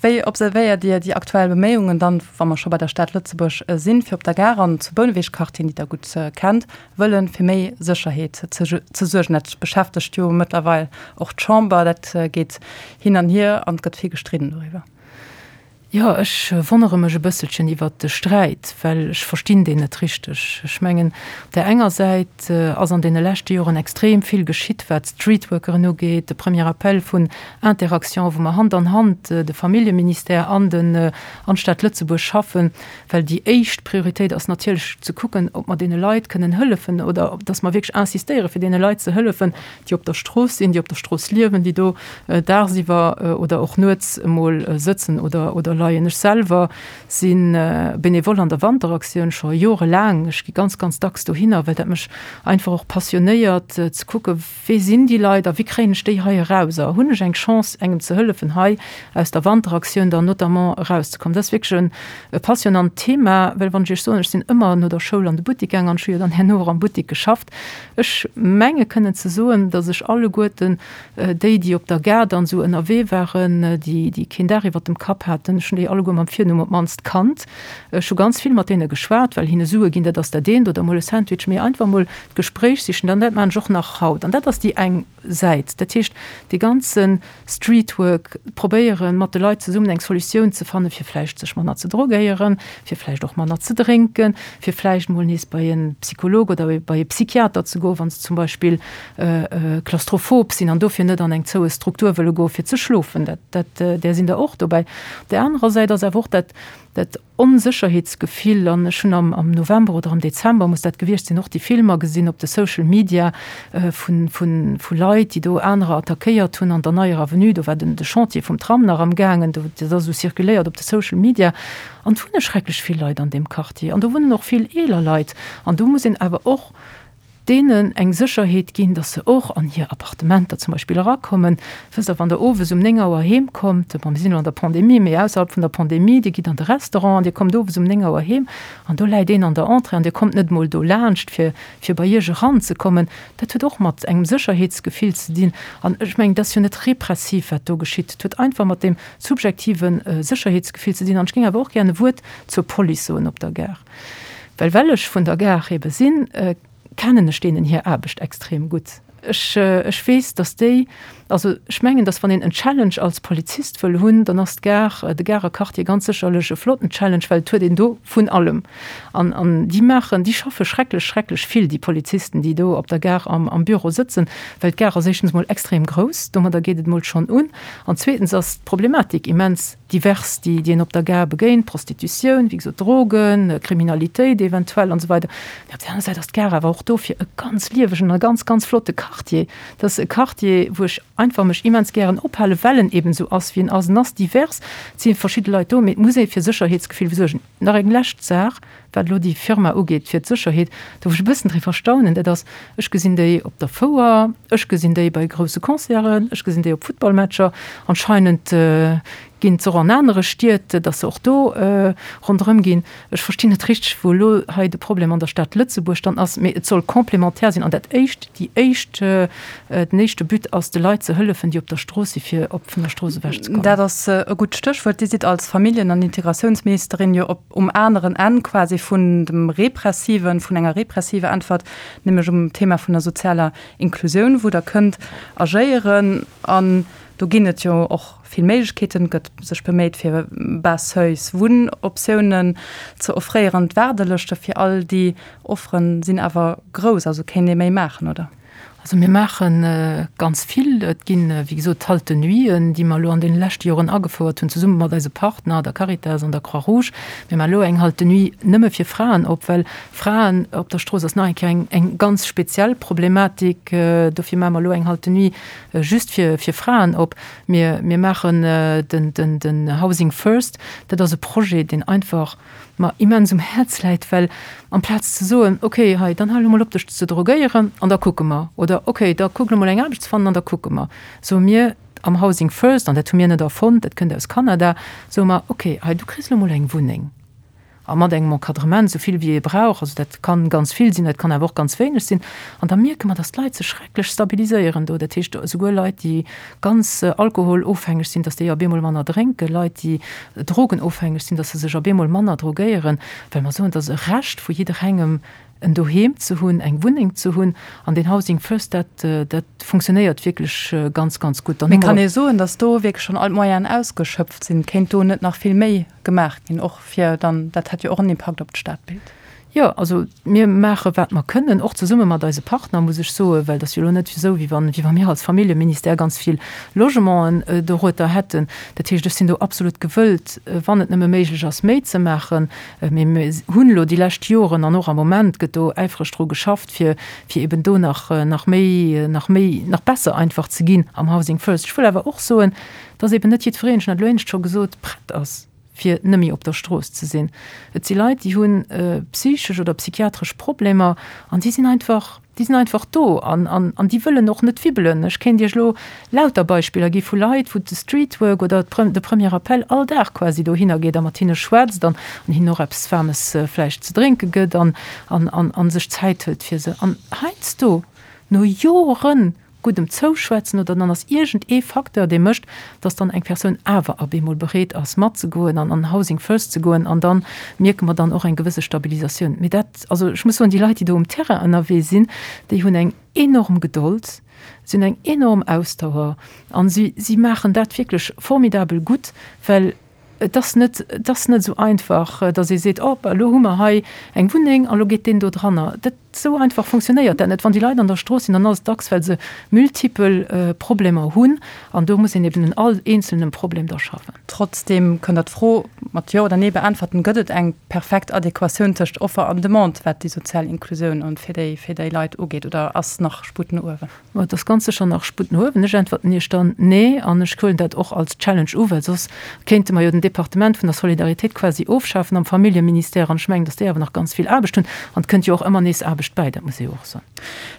Wéi observéiert Dir déi aktuell Beméiungen dann, wa mer scho bei der Stad Lëtzebuerg sinn, fir op der Gare an zu Bouneweg-Quartieren, déi Der gutt kennt, wëllen, fir méi Sécherheet ze suergen? Dat beschäftegt jo mëttlerweil och d'Chamber. Dat geet hin an hier an et gëtt vill gestridden doriwwer. Jo, ech wonnere mech e bësselchen iwwert de Sträit, well ech verstinn deen net richteg. Ech mengen, op där enger Säit ass an deene leschte Joren extrem vill geschitt, wat d'Streetworkeren ugeet, de Premier Appel vun Interaction, wou mer Hand an Hand, de Familljeministère an den an d'Stad Lëtzebuerg schaffen, well déi éischt Prioritéit ass natierlech ze kucken, ob mer deene Leit kënnen hëllefen oder dass mer wierklech insistéiere fir deene Leit ze hëllefen, déi op der Strooss sinn, déi op der Strooss liewen, déi do dagsiwwer oder och nuets emol sëtzen oder oder leien. Ech selwer si Benevole an der Wanteraktioun scho jorelaang. Ech gi ganz, ganz dacks dohinner, well dat mech einfach och passionéiert, ze kucke wee sinn déi Leit a wéi kréien ech déi hei eraus a hunn ech eng Chance engem ze hëllefen hei aus der Wanteraktioun dann notamment erauszekommen. Dat ass wierklech e passionant Thema, well wann ech Iech soen, ech sinn ëmmer no der Schoul an de Buttek gaang an ech hu jo dann herno och am Buttek geschafft, Ech menge kënnen ze soen, datt ech alleguerten déi, déi op der Gare dann esou ënnerwee waren, déi, déi keen Daach iwwert dem Kapp haten, ech hunn déi alleguer mam Virnumm op d'mannst kannt. Ech hu ganz vill mat deene geschwat, well hinne Sue ginn, dat ass dat eent, oder emol e Sandwich, mee einfach emol d'Gespréich sichen, dann dat maachen ech och nach haut. An dat ass déi eng Säit. Dat heescht, dee ganze Streetwork, probéieren, mat de Leit zesummen eng Solutioun ze fannen, fir vläicht sech manner ze drogéieren, fir vläicht och manner ze drénken, fir vläicht mol nees bei e Psycholog oder bei e Psychiater ze goen, wa se zum Beispill klaustrophob sinn an dofir net an eng zoue Struktur wëlle goen, fir ze schlofen. Dat, dat, där sinn der och dobäi. Op där anerer Säit ass awer och dat, dat Onsécherheetsgefill, an ech hunn am am November oder am Dezember muss dat gewiescht sinn, och déi Filmer gesinn op de Social Media vun vun vu Leit, déi do anerer attackéiert hunn an der Neier Avenue. Do war den de Chantier vum Tram nach am gaangen, do dat ass esou circuléiert op de Social Media. An et wunne schrecklech vill Leit an deem Quartier an do wunnen och vill eeler Leit. An do muss een awer och. Deenen eng Sécherheet ginn, dass se och an hir Appartementer zum Beispill erakommen. Wësst Der, wann Der owes um 9 Auer heem kommt, bon, mir sinn elo an der Pandemie, mee ausserhalb vun der Pandemie, Dir gitt an de Restaurant an Dir kommt owes um 9 Auer heem an do läit een an der Entrée an Dir kommt net emol do laanscht, fir, fir bei Iech eranzekommen. Dat huet och mat engem Sécherheetsgefill ze dinn. An ech mengen, dat ass jo net repressiv, wat do geschitt. Et huet einfach mat deem subjektive Sécherheetsgefill ze dinn. An ech géing awer och gären e Wuert zur Police soen op der Gare. Well well ech vun der Gare ebe sinn, kennen ech deenen hir Aarbecht extrem gutt. Ech, ech weess, datt déi, also ech mengen, datt wann een en Challenge als Polizist wëll hunn, dann ass d'Gare, de Garer Quartier ganz sécherlech e flotten Challenge, well et huet een do vun allem. An, an déi maachen, déi schaffe schrecklech, schrecklech vill, déi Polizisten, déi do op der Gare am, am Büro sëtzen, well d'Gare ass éischtens emol extrem grouss, domadder geet et emol schonn un, an zweetens ass d'Problematik immens divers, déi déi een op der Gare begéint, Prostitutioun, wéi gesot, Drogen, Kriminalitéit eventuell an esou weider. Mee op der aner Säit ass d'Gare awer och dofir e ganz liewegen a ganz, ganz flotte Quartier. Dat ass e Quartier, wou ech einfach mech immens gären ophalen, well en eben esou ass, wéi en ass. En ass divers, et si verschidde Leit do, mee et muss ee fir Sécherheetsgefill suergen. Nach eng lescht Saach, wat elo déi Firma ugeet fir d'Sécherheet, do wou ech e bëssen driwwer staunen, dat ass, ech gesinn déi op der Fouer, ech gesinn déi bei grousse Concerten, ech gesinn déi op Futtballmatcher, anscheinend ginn se och an anere Stied, datt se och do ronderëm ginn. Ech verstinn net richteg, wou elo hei de Problem an der Stad Lëtzebuerg dann ass, mee et soll complémentaire sinn an dat éischt, déi éischt, den éischte But ass, de Leit ze hëllefen, déi op der Strooss si fir op vun der Strooss ewech ze kommen. Dat ass e gutt Stéchwuert. Dir sidd als Familljen an Integratiounsministerin jo op um aneren Enn quasi vun dem repressiven, vun enger repressiver Äntwert, nämlech um Thema vun der sozialer Inklusioun, wou Der kënnt agéieren. An do ginn et jo och vill Méiglechkeeten, gëtt sech beméit fir bas seuils Wunnoptiounen ze offréieren. D'Waardelëschte fir all déi Offere sinn awer grouss, also kéint ee méi maachen, oder? Also mir maache ganz vill. Et ginn, wéi gesot, d'Halte-nuiten, déi mer elo an deene leschte Joren agefouert hunn, zesumme mat eise Partner, der Caritas an der Croix-Rouge. Mir maache elo eng Halte-nuit nëmme fir Fraen op, well Fraen op der Strooss ass nach eng Kéier eng, eng ganz speziell Problematik. Dofir maache mer elo eng Halte-nuit just fir, fir Fraen op. Mir, mir maachen den, den, den Housing First. Dat ass e Projet, deen einfach mer immens um Häerz läit, well amplaz ze soen, okay, hei, dann hal elo mol op dech ze drogéieren an da kucke mer, oder okay, da kuck elo mol eng Aarbecht ze fannen an da kucke mer, soe mir am Housing First, an dat hu mir net erfonnt, dat kënnt aus Kanada, soe mer, okay, hei, du kriss elo mol eng Wunneng a mat engem Encadrement, esou vill wéi ee brauch, also dat kann ganz vill sinn, dat kann awer och ganz wéineg sinn, an da mierke mer, dass d'Leit sech schrecklech stabiliséieren do, dat heescht esouguer Leit, déi ganz alkoholofhängeg sinn, dass déi op eemol manner drénken, Leit, déi drogenofhängeg sinn, dass se sech op eemol manner drogéieren, well mer soen, et ass e Recht vu jidderengem, en Doheem ze hunn, eng Wunneng ze hunn. An deen Housing First, dat, dat funktionéiert wierklech ganz, ganz gutt. Mee kann ee soen, dass do wierklech schonn all d'Moyenen ausgeschöpft sinn? Kéint do net nach vill méi gemaach ginn, och fir dann, dat hätt jo och en Impakt op d'Stadbild? Jo, also mir maache wat mer kënnen, och zesumme mat eise Partner, muss ech soen, well et ass jo elo net esou, wéi wann, wéi wa mir als Familljeministère ganz vill Logementen dorueter hätten. Dat heescht, ech sinn do absolut gewëllt, wann et nëmme méiglech ass, méi ze maachen. Mee mir hunn elo déi lescht Joren an och am Moment gëtt do äifreg dru geschafft, fir, fir eben do nach, nach méi, nach méi, nach besser einfach ze ginn am Housing First. Ech wëll awer och soen, dass eben net jiddwereen, ech hunn dat elo éinescht scho gesot, prett ass. fir nëmme op der Strooss ze sinn. Et si Leit, déi hu psychesch oder psychiatresch Problemer an déi sinn einfach, déi sinn einfach do an, an, an déi wëllen och net wibbelen. Ech kéint Iech elo lauter Beispiller gi vu Leit, wou de Streetwork oder de Premier Appel all Dag quasi dohinner geet a mat hinne schwätzt an hinnen och eppes Waarmes vläicht ze drénke gëtt an, an, an, an sech Zäit hëlt fir se. An heiansdo, no Joren, guddem Zouschwätzen oder dann ass iergend ee Facteur, dee mécht, dass dann eng Persoun awer ab eemol bereet ass matzegoen an an Housing First ze goen an da mierke mer dann och eng gewësse Stabilisatioun. Mee dat, also ech muss soen, déi Leit, déi do um Terrain ënnerwee sinn, déi hunn eng enorm Gedold, si hunn eng enorm Ausdauer an si si maachen dat wierklech formidabel gutt, well Et ass net, et ass net esou einfach, datt ee seet, oh, elo hu mer hei eng Wunneng a lo geet deen do dranner. Dat, esou einfach funktionéiert dat net. Wann déi Leit an der Strooss sinn, dann ass et dacks, well se multipel Problemer hunn an do muss een eben un all eenzelnem Problem da schaffen. Trotzdeem kënnt Der d'Fro mat Jo oder Nee beäntwerten, Gëtt et eng perfekt Adequatioun tëscht Offer an Demande, wat déi sozial Inklusioun an fir déi, fir déi Leit ugeet, oder ass nach Sputt no uewen? Ma et ass ganz sécher nach Sputt no uewen. Ech äntwerten Iech dann Nee an ech huelen dat och als Challenge u, well soss kéinte mer jo den Departement vun der Solidaritéit quasi ofschafen am Familljeministère an ech mengen, datt déi awer nach ganz vill Aarbecht hunn an et kënnt jo och ëmmer nees Aarbecht. d'selwecht bäi, dat muss ee jo och soen.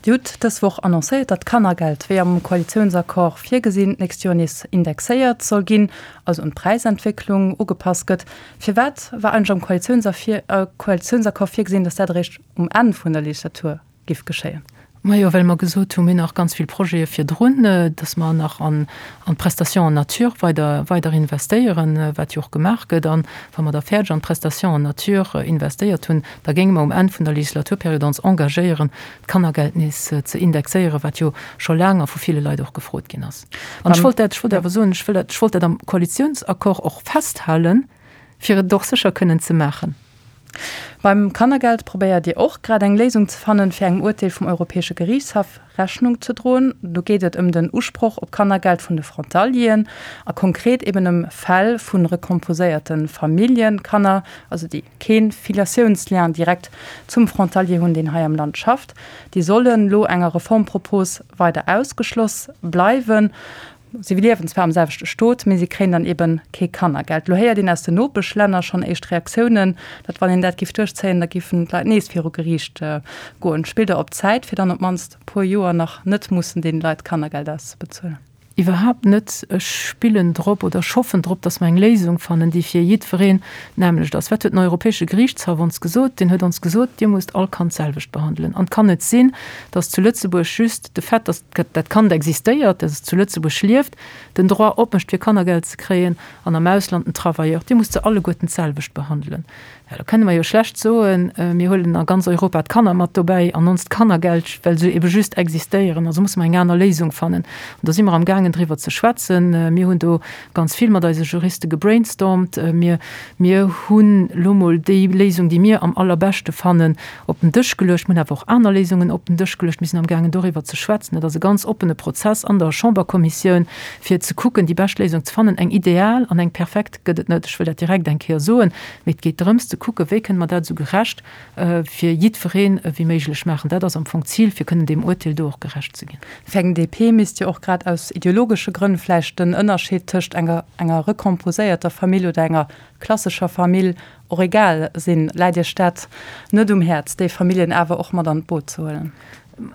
Dir hutt dës Woch annoncéiert, datt d'Kannergeld, wéi am Koalitiounsaccord virgesinn, d'nächst Joer nees indexéiert soll ginn, also un d'Präisentwécklung ugepasst gëtt. Firwat war eigentlech am Koalitiounsaccord virgesinn, datt dat eréischt um Enn vun der Legislatur giff geschéien? Majo, well mer gesot hunn, mir hunn nach ganz vill Projete virdrun, dass mer nach an d'Prestation en nature weider, weider investéieren, wat jo och gemaach gëtt. An wa mer da fäerdeg an d'Prestation en nature investéiert hunn, da géinge mer um Enn vun der Legislaturperiod ons engagéieren, d'Kannergeld nees ze indexéieren, wat jo scho laang a vu ville Leit och gefrot ginn ass. An ech wollt dat, ech wollt awer soen, ech wëll dat, ech wollt dat am Koalitionsaccord och festhalen, fir et och sécher kënnen ze maachen. Beim Kannergeld probéiert Dir och grad eng Léisung ze fannen, fir engem Urteel vum Europäesche Geriichtshaff Rechnung ze droen. Do geet et ëm den Usproch op Kannergeld vun de Frontalieren a konkret eben ëm Fäll vu recomposéierte Familljekanner, also déi kee Filiatiounslien direkt zum Frontalier hunn, deen hei am Land schafft. Déi sollen elo enger Reformpropos weider ausgeschloss bleiwen. Si liewen zwar am selwechte Stot, mee si kréien dann eben kee Kannergeld. Lo héiert een aus den Nopeschlänner schonn éischt Reaktiounen, datt wann een dat giff duerchzéien, da giffen d'Leit nees viru Geriicht goen. Spillt Der op Zäit, fir dann op d'mannst e puer Joer nach net mussen deene Leit Kannergeld auszebezuelen? Iwwerhaapt net. Ech spillen drop oder ech hoffen drop, datt mer eng Léisung fannen, déi fir jiddwereen d'nämmlecht ass. Wat huet den Europäesche Geriichtshaff ons gesot? Deen huet ons gesot, Dir musst all Kand d'selwecht behandelen. An et kann net sinn, datt zu Lëtzebuerg just de Fait, datt dat Kand existéiert, dat zu Lëtzebuerg lieft, den Droit opmécht fir Kannergeld ze kréien an am Ausland den Travailleur, Dir musst se alleguerten d'selwecht behandelen. Jo, da kënne mer jo schlecht soen, mir huelen a ganz Europa d'Kanner mat dobäi an onst Kannergeld, well se ebe just existéieren. Also musse mer eng aner Léisung fannen. An do si mer amgaangen driwwer ze schwätzen. Mir hunn do ganz vill mat eise Juriste gebrainstormt. Mir, mir hunn elo mol déi Léisung, déi mir am allerbeschte fannen, op den Dësch geluecht. Mir hunn awer och aner Léisungen op den Dësch geluecht. Mir sinn amgaangen doriwwer ze schwätzen. Dat ass e ganz oppene Prozess an der Chamberkommissioun, fir ze kucken, déi bescht Léisung ze fannen. Eng ideal an eng perfekt gëtt et net, ech wëll dat direkt eng Kéier soen. Mee et geet drëms ze kucken, wéi kënne mer dat esou gerecht fir jiddwereen ewéi méiglech maachen. Dat ass am Fong d'Zil, fir kënnen deem Urteel do och gerecht ze ginn. Fir eng DP misst jo och grad aus ideologesche Grënn vläicht den Ënnerscheed tëscht enger enger recomposéierter Famill oder enger klassescher Famill och egal sinn. Läit Iech dat net um Häerz, déi Familljen awer och mat an d'Boot ze huelen?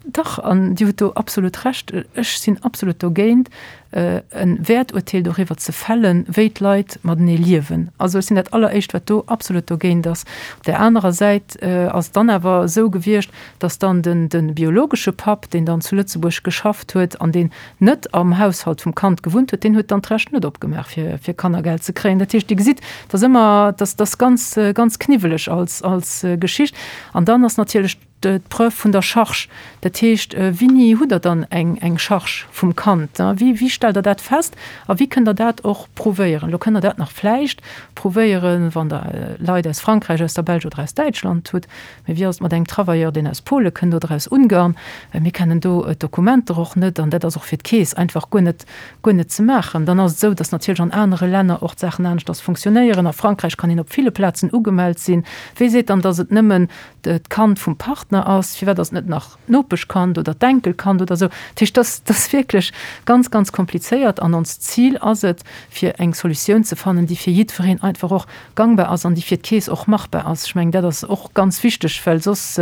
Dach, an Dir hutt do absolut Recht. Ech sinn absolut dogéint, e Wäerturteel doriwwer ze fällen, wéi d'Leit matenee liewen. Also ech sinn dat Alleréischt, wat do absolut dogéint ass. Op där anerer Säit ass et dann awer esou gewiescht, datt dann de biologesche Papp, deen dann zu Lëtzebuerg geschafft huet an deen net am Haushalt vum Kand gewunnt huet, deen huet dann d'Recht net opgemaach, fir, fir Kannergeld ze kréien. Dat heescht, Dir gesitt, et ass ëmmer, dat ass ganz, ganz kniwweleg als, als Geschicht. An dann ass natierlech d'Preuve vun der Charge. Dat heescht, wéini hutt Der dann eng, eng Charge vum Kand? Wéi, wéi stellt Der dat fest a wéi kënnt Der dat och prouvéieren? Elo kënnt Der dat nach vläicht prouvéieren, wann Der Leit aus Frankräich, aus der Belsch oder aus Däitschland hutt. Mee wéi ass et mat engem Travailleur, deen aus Pole kënnt oder aus Ungarn? Mir kennen do d'Dokumenter och net an dat ass och fir d'Keess einfach guer net, guer net ze maachen. Dann ass et esou, datt natierlech an anere Länner och d'Saachen aneschters funktionéieren. A Frankräich kann een op ville Plazen ugemellt sinn. Wie seet dann, datt et nëmmen d'Kand vum Partner ass? Firwat ass et net nach d'Nopeschkand oder d'Enkelkand oder esou? Dat heescht, dat ass wierklech ganz, ganz komplizéiert an onst Zil ass et, fir eng Solutioun ze fannen, déi fir jiddwereen einfach och gangbar ass an déi fir d'Keess och machbar ass. Ech mengen, dat ass och ganz wichteg, well soss,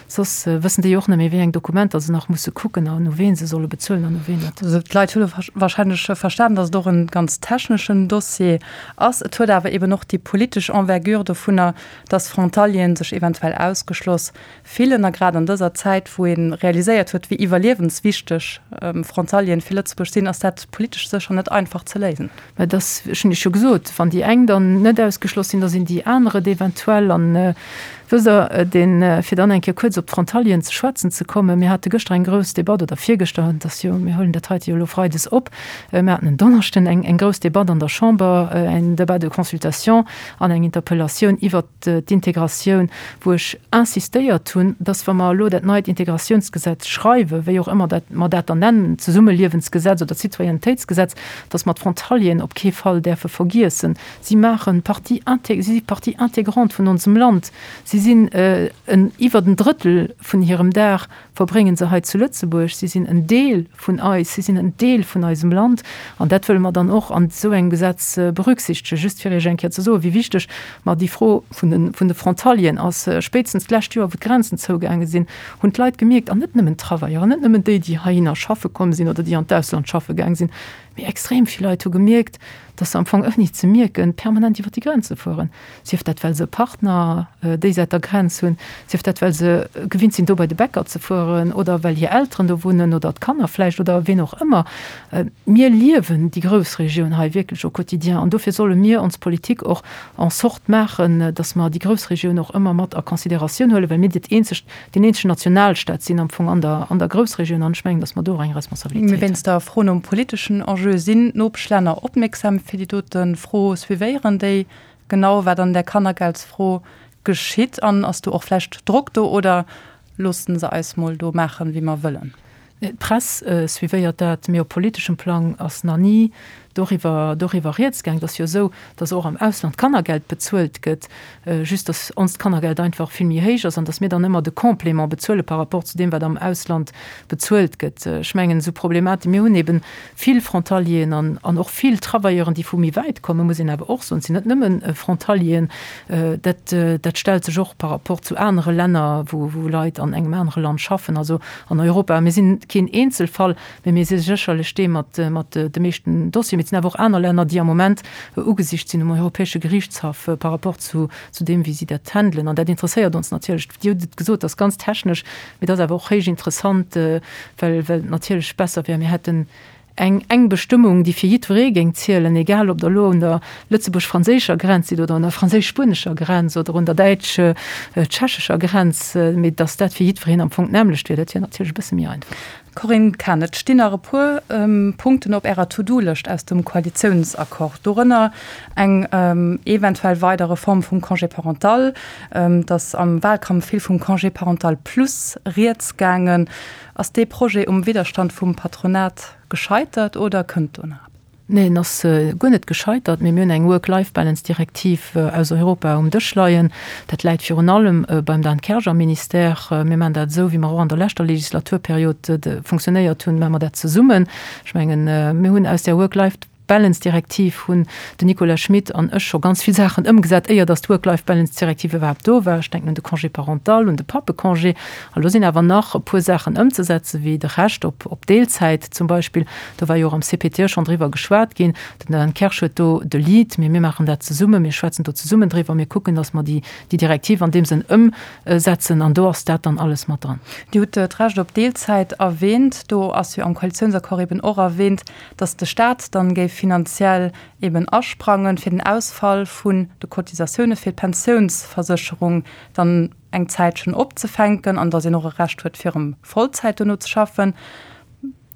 soss wëssen déi och net méi, wéi eng Dokumenter se nach musse kucken an u ween se solle bezuelen an u ween net. Also d'Leit hu wahrscheinlech verstanen, datt et och e ganz techneschen Dossier ass. Et huet awer eben och déi politesch Envergure dovunner, datt Frontalieren sech eventuell ausgeschloss fillen. A grad an dëser Zäit, wou ee realiséiert huet, wéi iwwerliewenswichteg Frontalieren fir Lëtzebuerg sinn, ass dat politesch sécher net einfach ze léisen. Mä et ass, ech hunn Iech jo gesot, wann déi eng dann net ausgeschloss sinn, da sinn déi aner et eventuell. An wësst Der, deen, fir dann eng Kéier kuerz op d'Frontalieren ze schwätzen ze kommen, mir hate gëschter eng grouss Debatt, oder virgëschter, et ass jo, mir huelen dat heite jo elo freides op, mir haten en Donneschden eng, eng grouss Debatt an der Chamber, en Débat de consultation an eng Interpellatioun iwwert d'Integratioun, wou ech insistéiert hunn, dass, wa mer elo dat neit Integratiounsgesetz schreiwen, wéi och ëmmer dat mer dat dann nennen, d'Zesummeliewensgesetz oder d'Citoyennetéitsgesetz, dass mer d'Frontalieren op kee Fall däerfe vergiessen. Si maache Partie, si si Partie intégrante vun onsem Land. Si. Si sinn en iwwert en Drëttel vun hirem Dag verbrénge se hei zu Lëtzebuerg. Si sinn en Deel vun eis, si sinn en Deel vun eisem Land an dat wëlle mer dann och an esou engem Gesetz berücksichtegen. Just fir Iech eng Kéier ze soen, wéi wichteg mer déi Fro vun de, vun de Frontalieren ass. Spéitstens d'lescht Joer, wou d'Grenzen zougaange sinn, hunn d'Leit gemierkt, an net nëmmen d'Travaieuren, net nëmmen déi, déi heihinner schaffe komm sinn oder déi an d'Ausland schaffe gaang sinn, mee extrem vill Leit hu gemierkt, dass se am Fong ouni et ze mierken permanent iwwer déi Grenze fueren, sief dat well se e Partner déi Säit der Grenz hunn, sief dat well se gewinnt sinn do bei de Bäcker ze fueren oder well hir Elteren do wunnen oder d'Kanner vläicht oder ween och ëmmer. Mir liewen déi Groussregioun hei wierklech au quotidien an dofir solle mir ons Politik och en sorte maachen, dass mer déi Groussregioun och ëmmer mat a Considératioun huelen, well mir dat eenzegt deen eenzegen Nationalstaat sinn am Fong an der, an der Groussregioun an ech mengen, datt mer do och eng Responsabilitéit hunn. Wéinst der Fro nom politeschen Enjeu, sinn d'Nopeschlänner opmierksam fir déi dote Fro? Suivéieren déi genau, wat an där Kannergeldsfro geschitt? An ass do och vläicht Drock do oder loosse se eis mol do maachen, wéi mer wëllen? D'Press suivéiert dat, mee op politeschem Plang ass nach ni doriwwer doriwwer rieds gaang. Et ass jo esou, datt och am Ausland Kannergeld bezuelt gëtt, just datt onst Kannergeld einfach vill méi héich ass an datt mir dann ëmmer de Complément bezuele par rapport zu deem, wat am Ausland bezuelt gëtt. Ech mengen, esou Problematik, mir hunn eben vill Frontalieren an an och vill Travailleuren, déi vu méi wäit kommen, muss een awer och soen. Et sinn net nëmme Frontalieren. Dat dat stellt sech och par rapport zu anere Länner, wou wou Leit an engem anere Land schaffen, also an Europa. Mir sinn keen Eenzelfall, mä mir si sécherlech dee mat mat de meeschten Dossieren. Mee et sinn awer och aner Länner, déi am Moment ugesicht sinn um Europäesche Gerichtshaff par rapport zu zu deem, wéi si dat handelen. An dat interesséiert ons natierlech. Dir hutt et gesot, dat ass ganz technesch, mee dat ass awer och héich interessant, well well et natierlech besser wär, mir hätten eng eng Bestëmmung, déi fir jiddweree géing zielen, egal ob Der elo un der lëtzebuerg-franséischer Grenz sidd oder un der franséisch-spuenescher Grenz oder un der däitsch-tschechescher Grenz, mee datt dat fir jiddwereen am Fong d'nämmlecht wier, dat wier natierlech e bësse méi einfach. Corinne Cahen, Et stinn nach e puer Punkten op Ärer To-do-Lëscht aus dem Koalitiounsaccord, dorënner eng eventuell weider Reform vum Congé parental. Et ass am Wahlkampf vill vum Congé parental plus rieds gaangen. Ass dee Projet um Widderstand vum Patronat gescheitert oder kënnt do nach eppes? Nee, en ass guer net gescheitert, mee mir hunn eng Work-Life-Balance-Direktiv aus Europa um Dësch leien. Dat läit virun allem beim Dan Kersch am Ministère. Mir maachen dat esou, wéi mer och an der leschter Legislaturperiod funktionéiert hunn, maache mer dat zesummen. Ech mengen, mir hunn aus där Work-Life-Balance-Direktiv hunn den Nicolas Schmit an ech scho ganz vill Saachen ëmgesat, éier datt d'Work-Life-Balance-Direktiv iwwerhaapt do war. Ech denken un de Congé parental, un de Pappecongé. A lo sinn awer nach e puer Saachen ëmzesetzen, wéi de Recht op Deelzäit zum Beispill. Do war jo och am CPTE schonn driwwer geschwat ginn. Den Dan Kersch huet do de Lead, mee mir maachen dat zesummen. Mir schwätzen do zesummen driwwer. Mir kucken, datt mer déi Direktiv an deem Sënn ëmsetzen an do ass dat dann alles mat dran. Dir hutt d'Recht op Deelzäit erwähnt. Do ass jo am Koalitiounsaccord eben och erwähnt, datt de Staat dann géif finanziell eben asprangen, fir den Ausfall vun de Cotisatioune fir d'Pensiounsversécherung dann eng Zäitchen opzefänken an datt een och e Recht huet, fir erëm Vollzäit dono ze schaffen.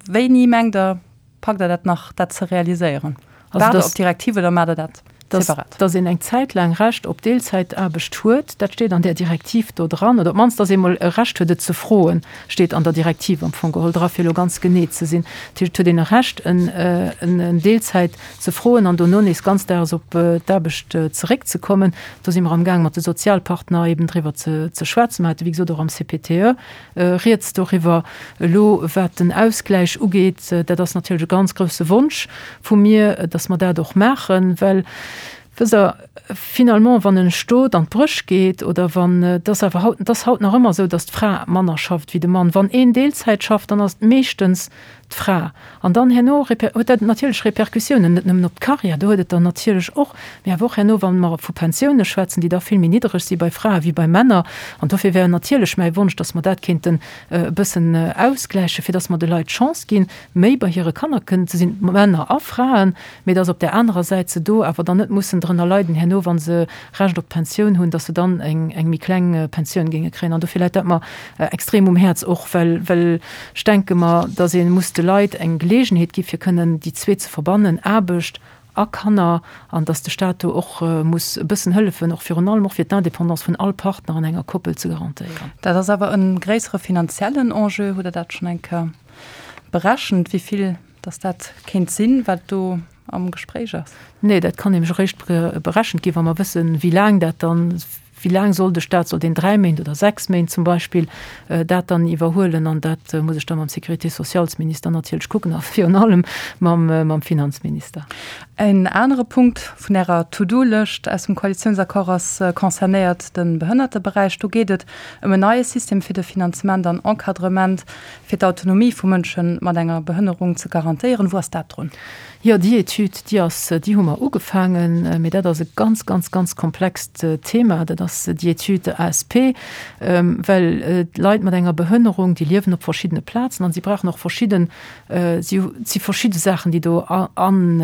Wéini mengt Der, packt Der dat nach, dat ze realiséieren? Waart Der op d'Direktiv oder maacht Der dat separat? Dass een eng Zäit laang Recht op Deelzäitaarbecht huet, dat steet an där Direktiv do dran. Oder op d'mannst, dass ee mol e Recht huet, et ze froen, steet an der Direktiv am Fong geholl dra, fir elo ganz genee ze sinn. Dat heescht, et huet een e Recht, en Deelzäit ze froen an dono nees ganzdaags op d'Aarbecht zeréckzekommen. Do si mer amgaang, mat de Sozialpartner eben driwwer ze schwätzen. Mer hate wéi gesot och am CPTE Rieds doriwwer. Elo wat den Ausgläich ugeet, dat ass natierlech e ganz grousse Wonsch vu mir, datt mer dat och maachen, well, wësst Der, finalement, wann e Stot an d'Bréch geet oder wann, et ass awer haut, et ass haut nach ëmmer esou, datt d'Fra manner schafft wéi de Mann. Wann een Deelzäit schafft, dann ass et meeschtens d'Fra. An dann herno huet dat natierlech Répercussiounen, net nëmmen op d'Carrière, do huet et der natierlech och, mee awer och herno, wa mer vu Pensioune schwätzen, déi da vill méi niddereg si bei Frae wéi bei Männer. An dofir wär natierlech mäi Wonsch, datt mer dat kéinten e bëssen ausgläichen, fir datt mer de Leit d'Chance ginn, méi bei hire Kanner kënnen ze sinn, Männer a Fraen, mee datt op där anerer Säit se do awer dann net mussen drënner leiden herno, wa se Recht op d'Pensioun hunn, datt se dann eng méi kleng Pensioun géinge kréien. An dofir läit dat mer extrem um Häerz och, well, well ech denke mer, datt ee muss de Leit eng Geleegenheet gi fir kënnen déi zwee ze verbannen, Aarbecht a Kanner, an datt de Stat do och muss e bëssen hëllefen, och virun allem och fir d'Indépendance vun all Partner an enger Koppel ze garantéieren. Dat ass awer e gréissere finanziellen Enjeu. Hutt Der dat schonn eng Kéier berechent, wéi vill datt dat kéint sinn, wat do am Gespréich ass? Nee, dat kann nämlech eréischt berechent ginn, wa mer wëssen, wéi laang dat dann. Wéi laang soll de Staat, soll deen 3 Méint oder 6 Méint zum Beispill dat dann iwwerhuelen? An dat muss ech da mam Sécurité-sociales-Minister natierlech kucken a virun allem mam Finanzminister. En anere Punkt vun Ärer To-do-Lëscht aus dem Koalitiounsaccord ass concernéiert de Behënnerteberäich. Do geet et ëm en neie System fir de Finanzement an Encadrement fir d'Autonomie vu Mënsche mat enger Behënnerung ze garantéieren. Wou ass dat drun? Jo, déi Etüd, déi ass, déi hu mer ugefaangen, mee dat ass e ganz, ganz, ganz komplext Thema. Dat ass déi Etüd ASP, well d'Leit mat enger Behënnerung, déi liewen op verschiddene Plazen an si brauchen och verschidden, si, et si verschidde Saachen, déi do an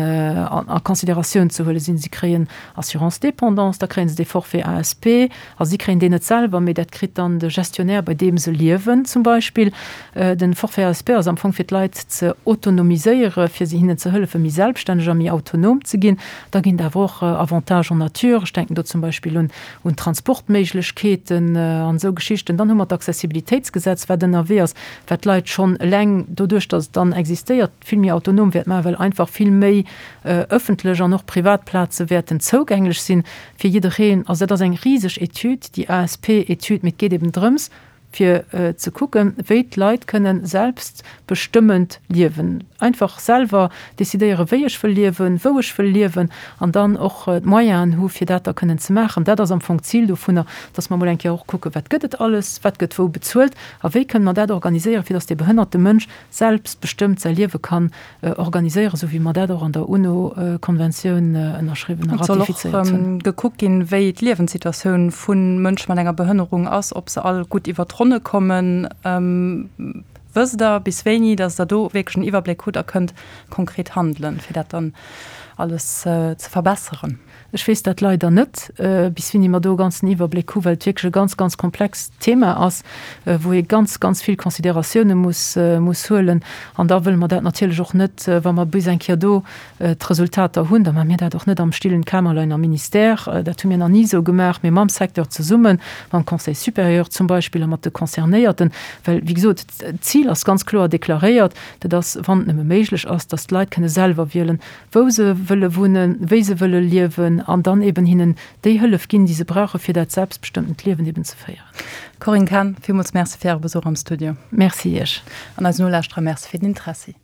a Consideratioun ze huele sinn. Si kréien Assurance dépendance, da kréie se dee Forfait ASP, Also si kréien deen net selwer, mee dat kritt dann de Gestionnaire, bei deem se liewen zum Beispill. Den Forfait ASP ass am Fong fir d'Leit ze autonomiséiere, fir se hinnen ze hëllefen, méi selbststänneg a méi autonom ze ginn. Da ginn et awer och Avantages en nature, ech denken do zum Beispill un un Transportméiglechkeeten an esou Geschichten. Dann hu mer d'Accessibilitéitsgesetz, wat ënnerwee ass, wat d'Leit schonn eleng doduerch, datt et dann existéiert, vill méi autonom wäert maachen, well einfach vill méi ëffentlech an och privat Plaze wäerten zougänglech sinn. Fir jiddereen. Also dat ass eng riseg Etüd, déi ASP-Etüd, mee et geet eben drëms, fir ze kucken, wéi d'Leit kënnen selbstbestëmmend liewen, einfach selwer decidéieren, wéi ech wëll liewen, wou ech wëll liewen an dann och d'Moyenen hu fir dat da kënnen ze maachen. Dat ass am Fong d'Zil dovunner, dass mer emol eng Kéier och kucken, wat gëtt et alles, wat gëtt wou bezuelt a wéi kënnen mer dat organiséieren, fir dass dee behënnerte Mënsch selbstbestëmmt säi Liewe kann organiséieren, esou wéi mer dat och an der UNO-Konventioun ënnerschriwwen a ratifizéiert hunn. Et soll och gekuckt ginn, wéi d'Liewenssituatioun vu Mënsche mat enger Behënnerung ass, ob se all gutt iwwer d'Ronne kommen. Wësst Der bis wéini, datt Der do wierklech en Iwwerbléck hutt a kënnt konkret handelen, fir dat dann alles ze verbesseren? Ech weess dat leider net, bis wéini mer do e ganzen Iwwerbléck hu, well et wierklech e ganz, ganz komplext Thema ass, wou ee ganz, ganz vill Consideratioune muss, muss huelen. An da wëlle mer dat natierlech och net, wa mer bis eng Kéier do d'Resultater hunn, da maache mir dat och net am stillen Kämmerlein am Ministère, dat hu mir nach ni esou gemaach, mee mam Secteur zesummen, mam Conseil supérieur zum Beispill a mat de Concernéierten. Well, wéi gesot, d'Zil ass ganz kloer deklaréiert, dat ass, wann et nëmme méiglech ass, dass d'Leit kënne selwer wielen, wou se wëlle wunnen, wéi se wëlle liewen an dann eben hinnen déi Hëllef ginn, déi se brauchen, fir dat selbstbestëmmtent Liewen eben ze féieren. Corinne Cahen, villmools Merci fir Äre Besuch am Studio. Merci Iech. An eisen Nolauschterer Merci fir den Interessi.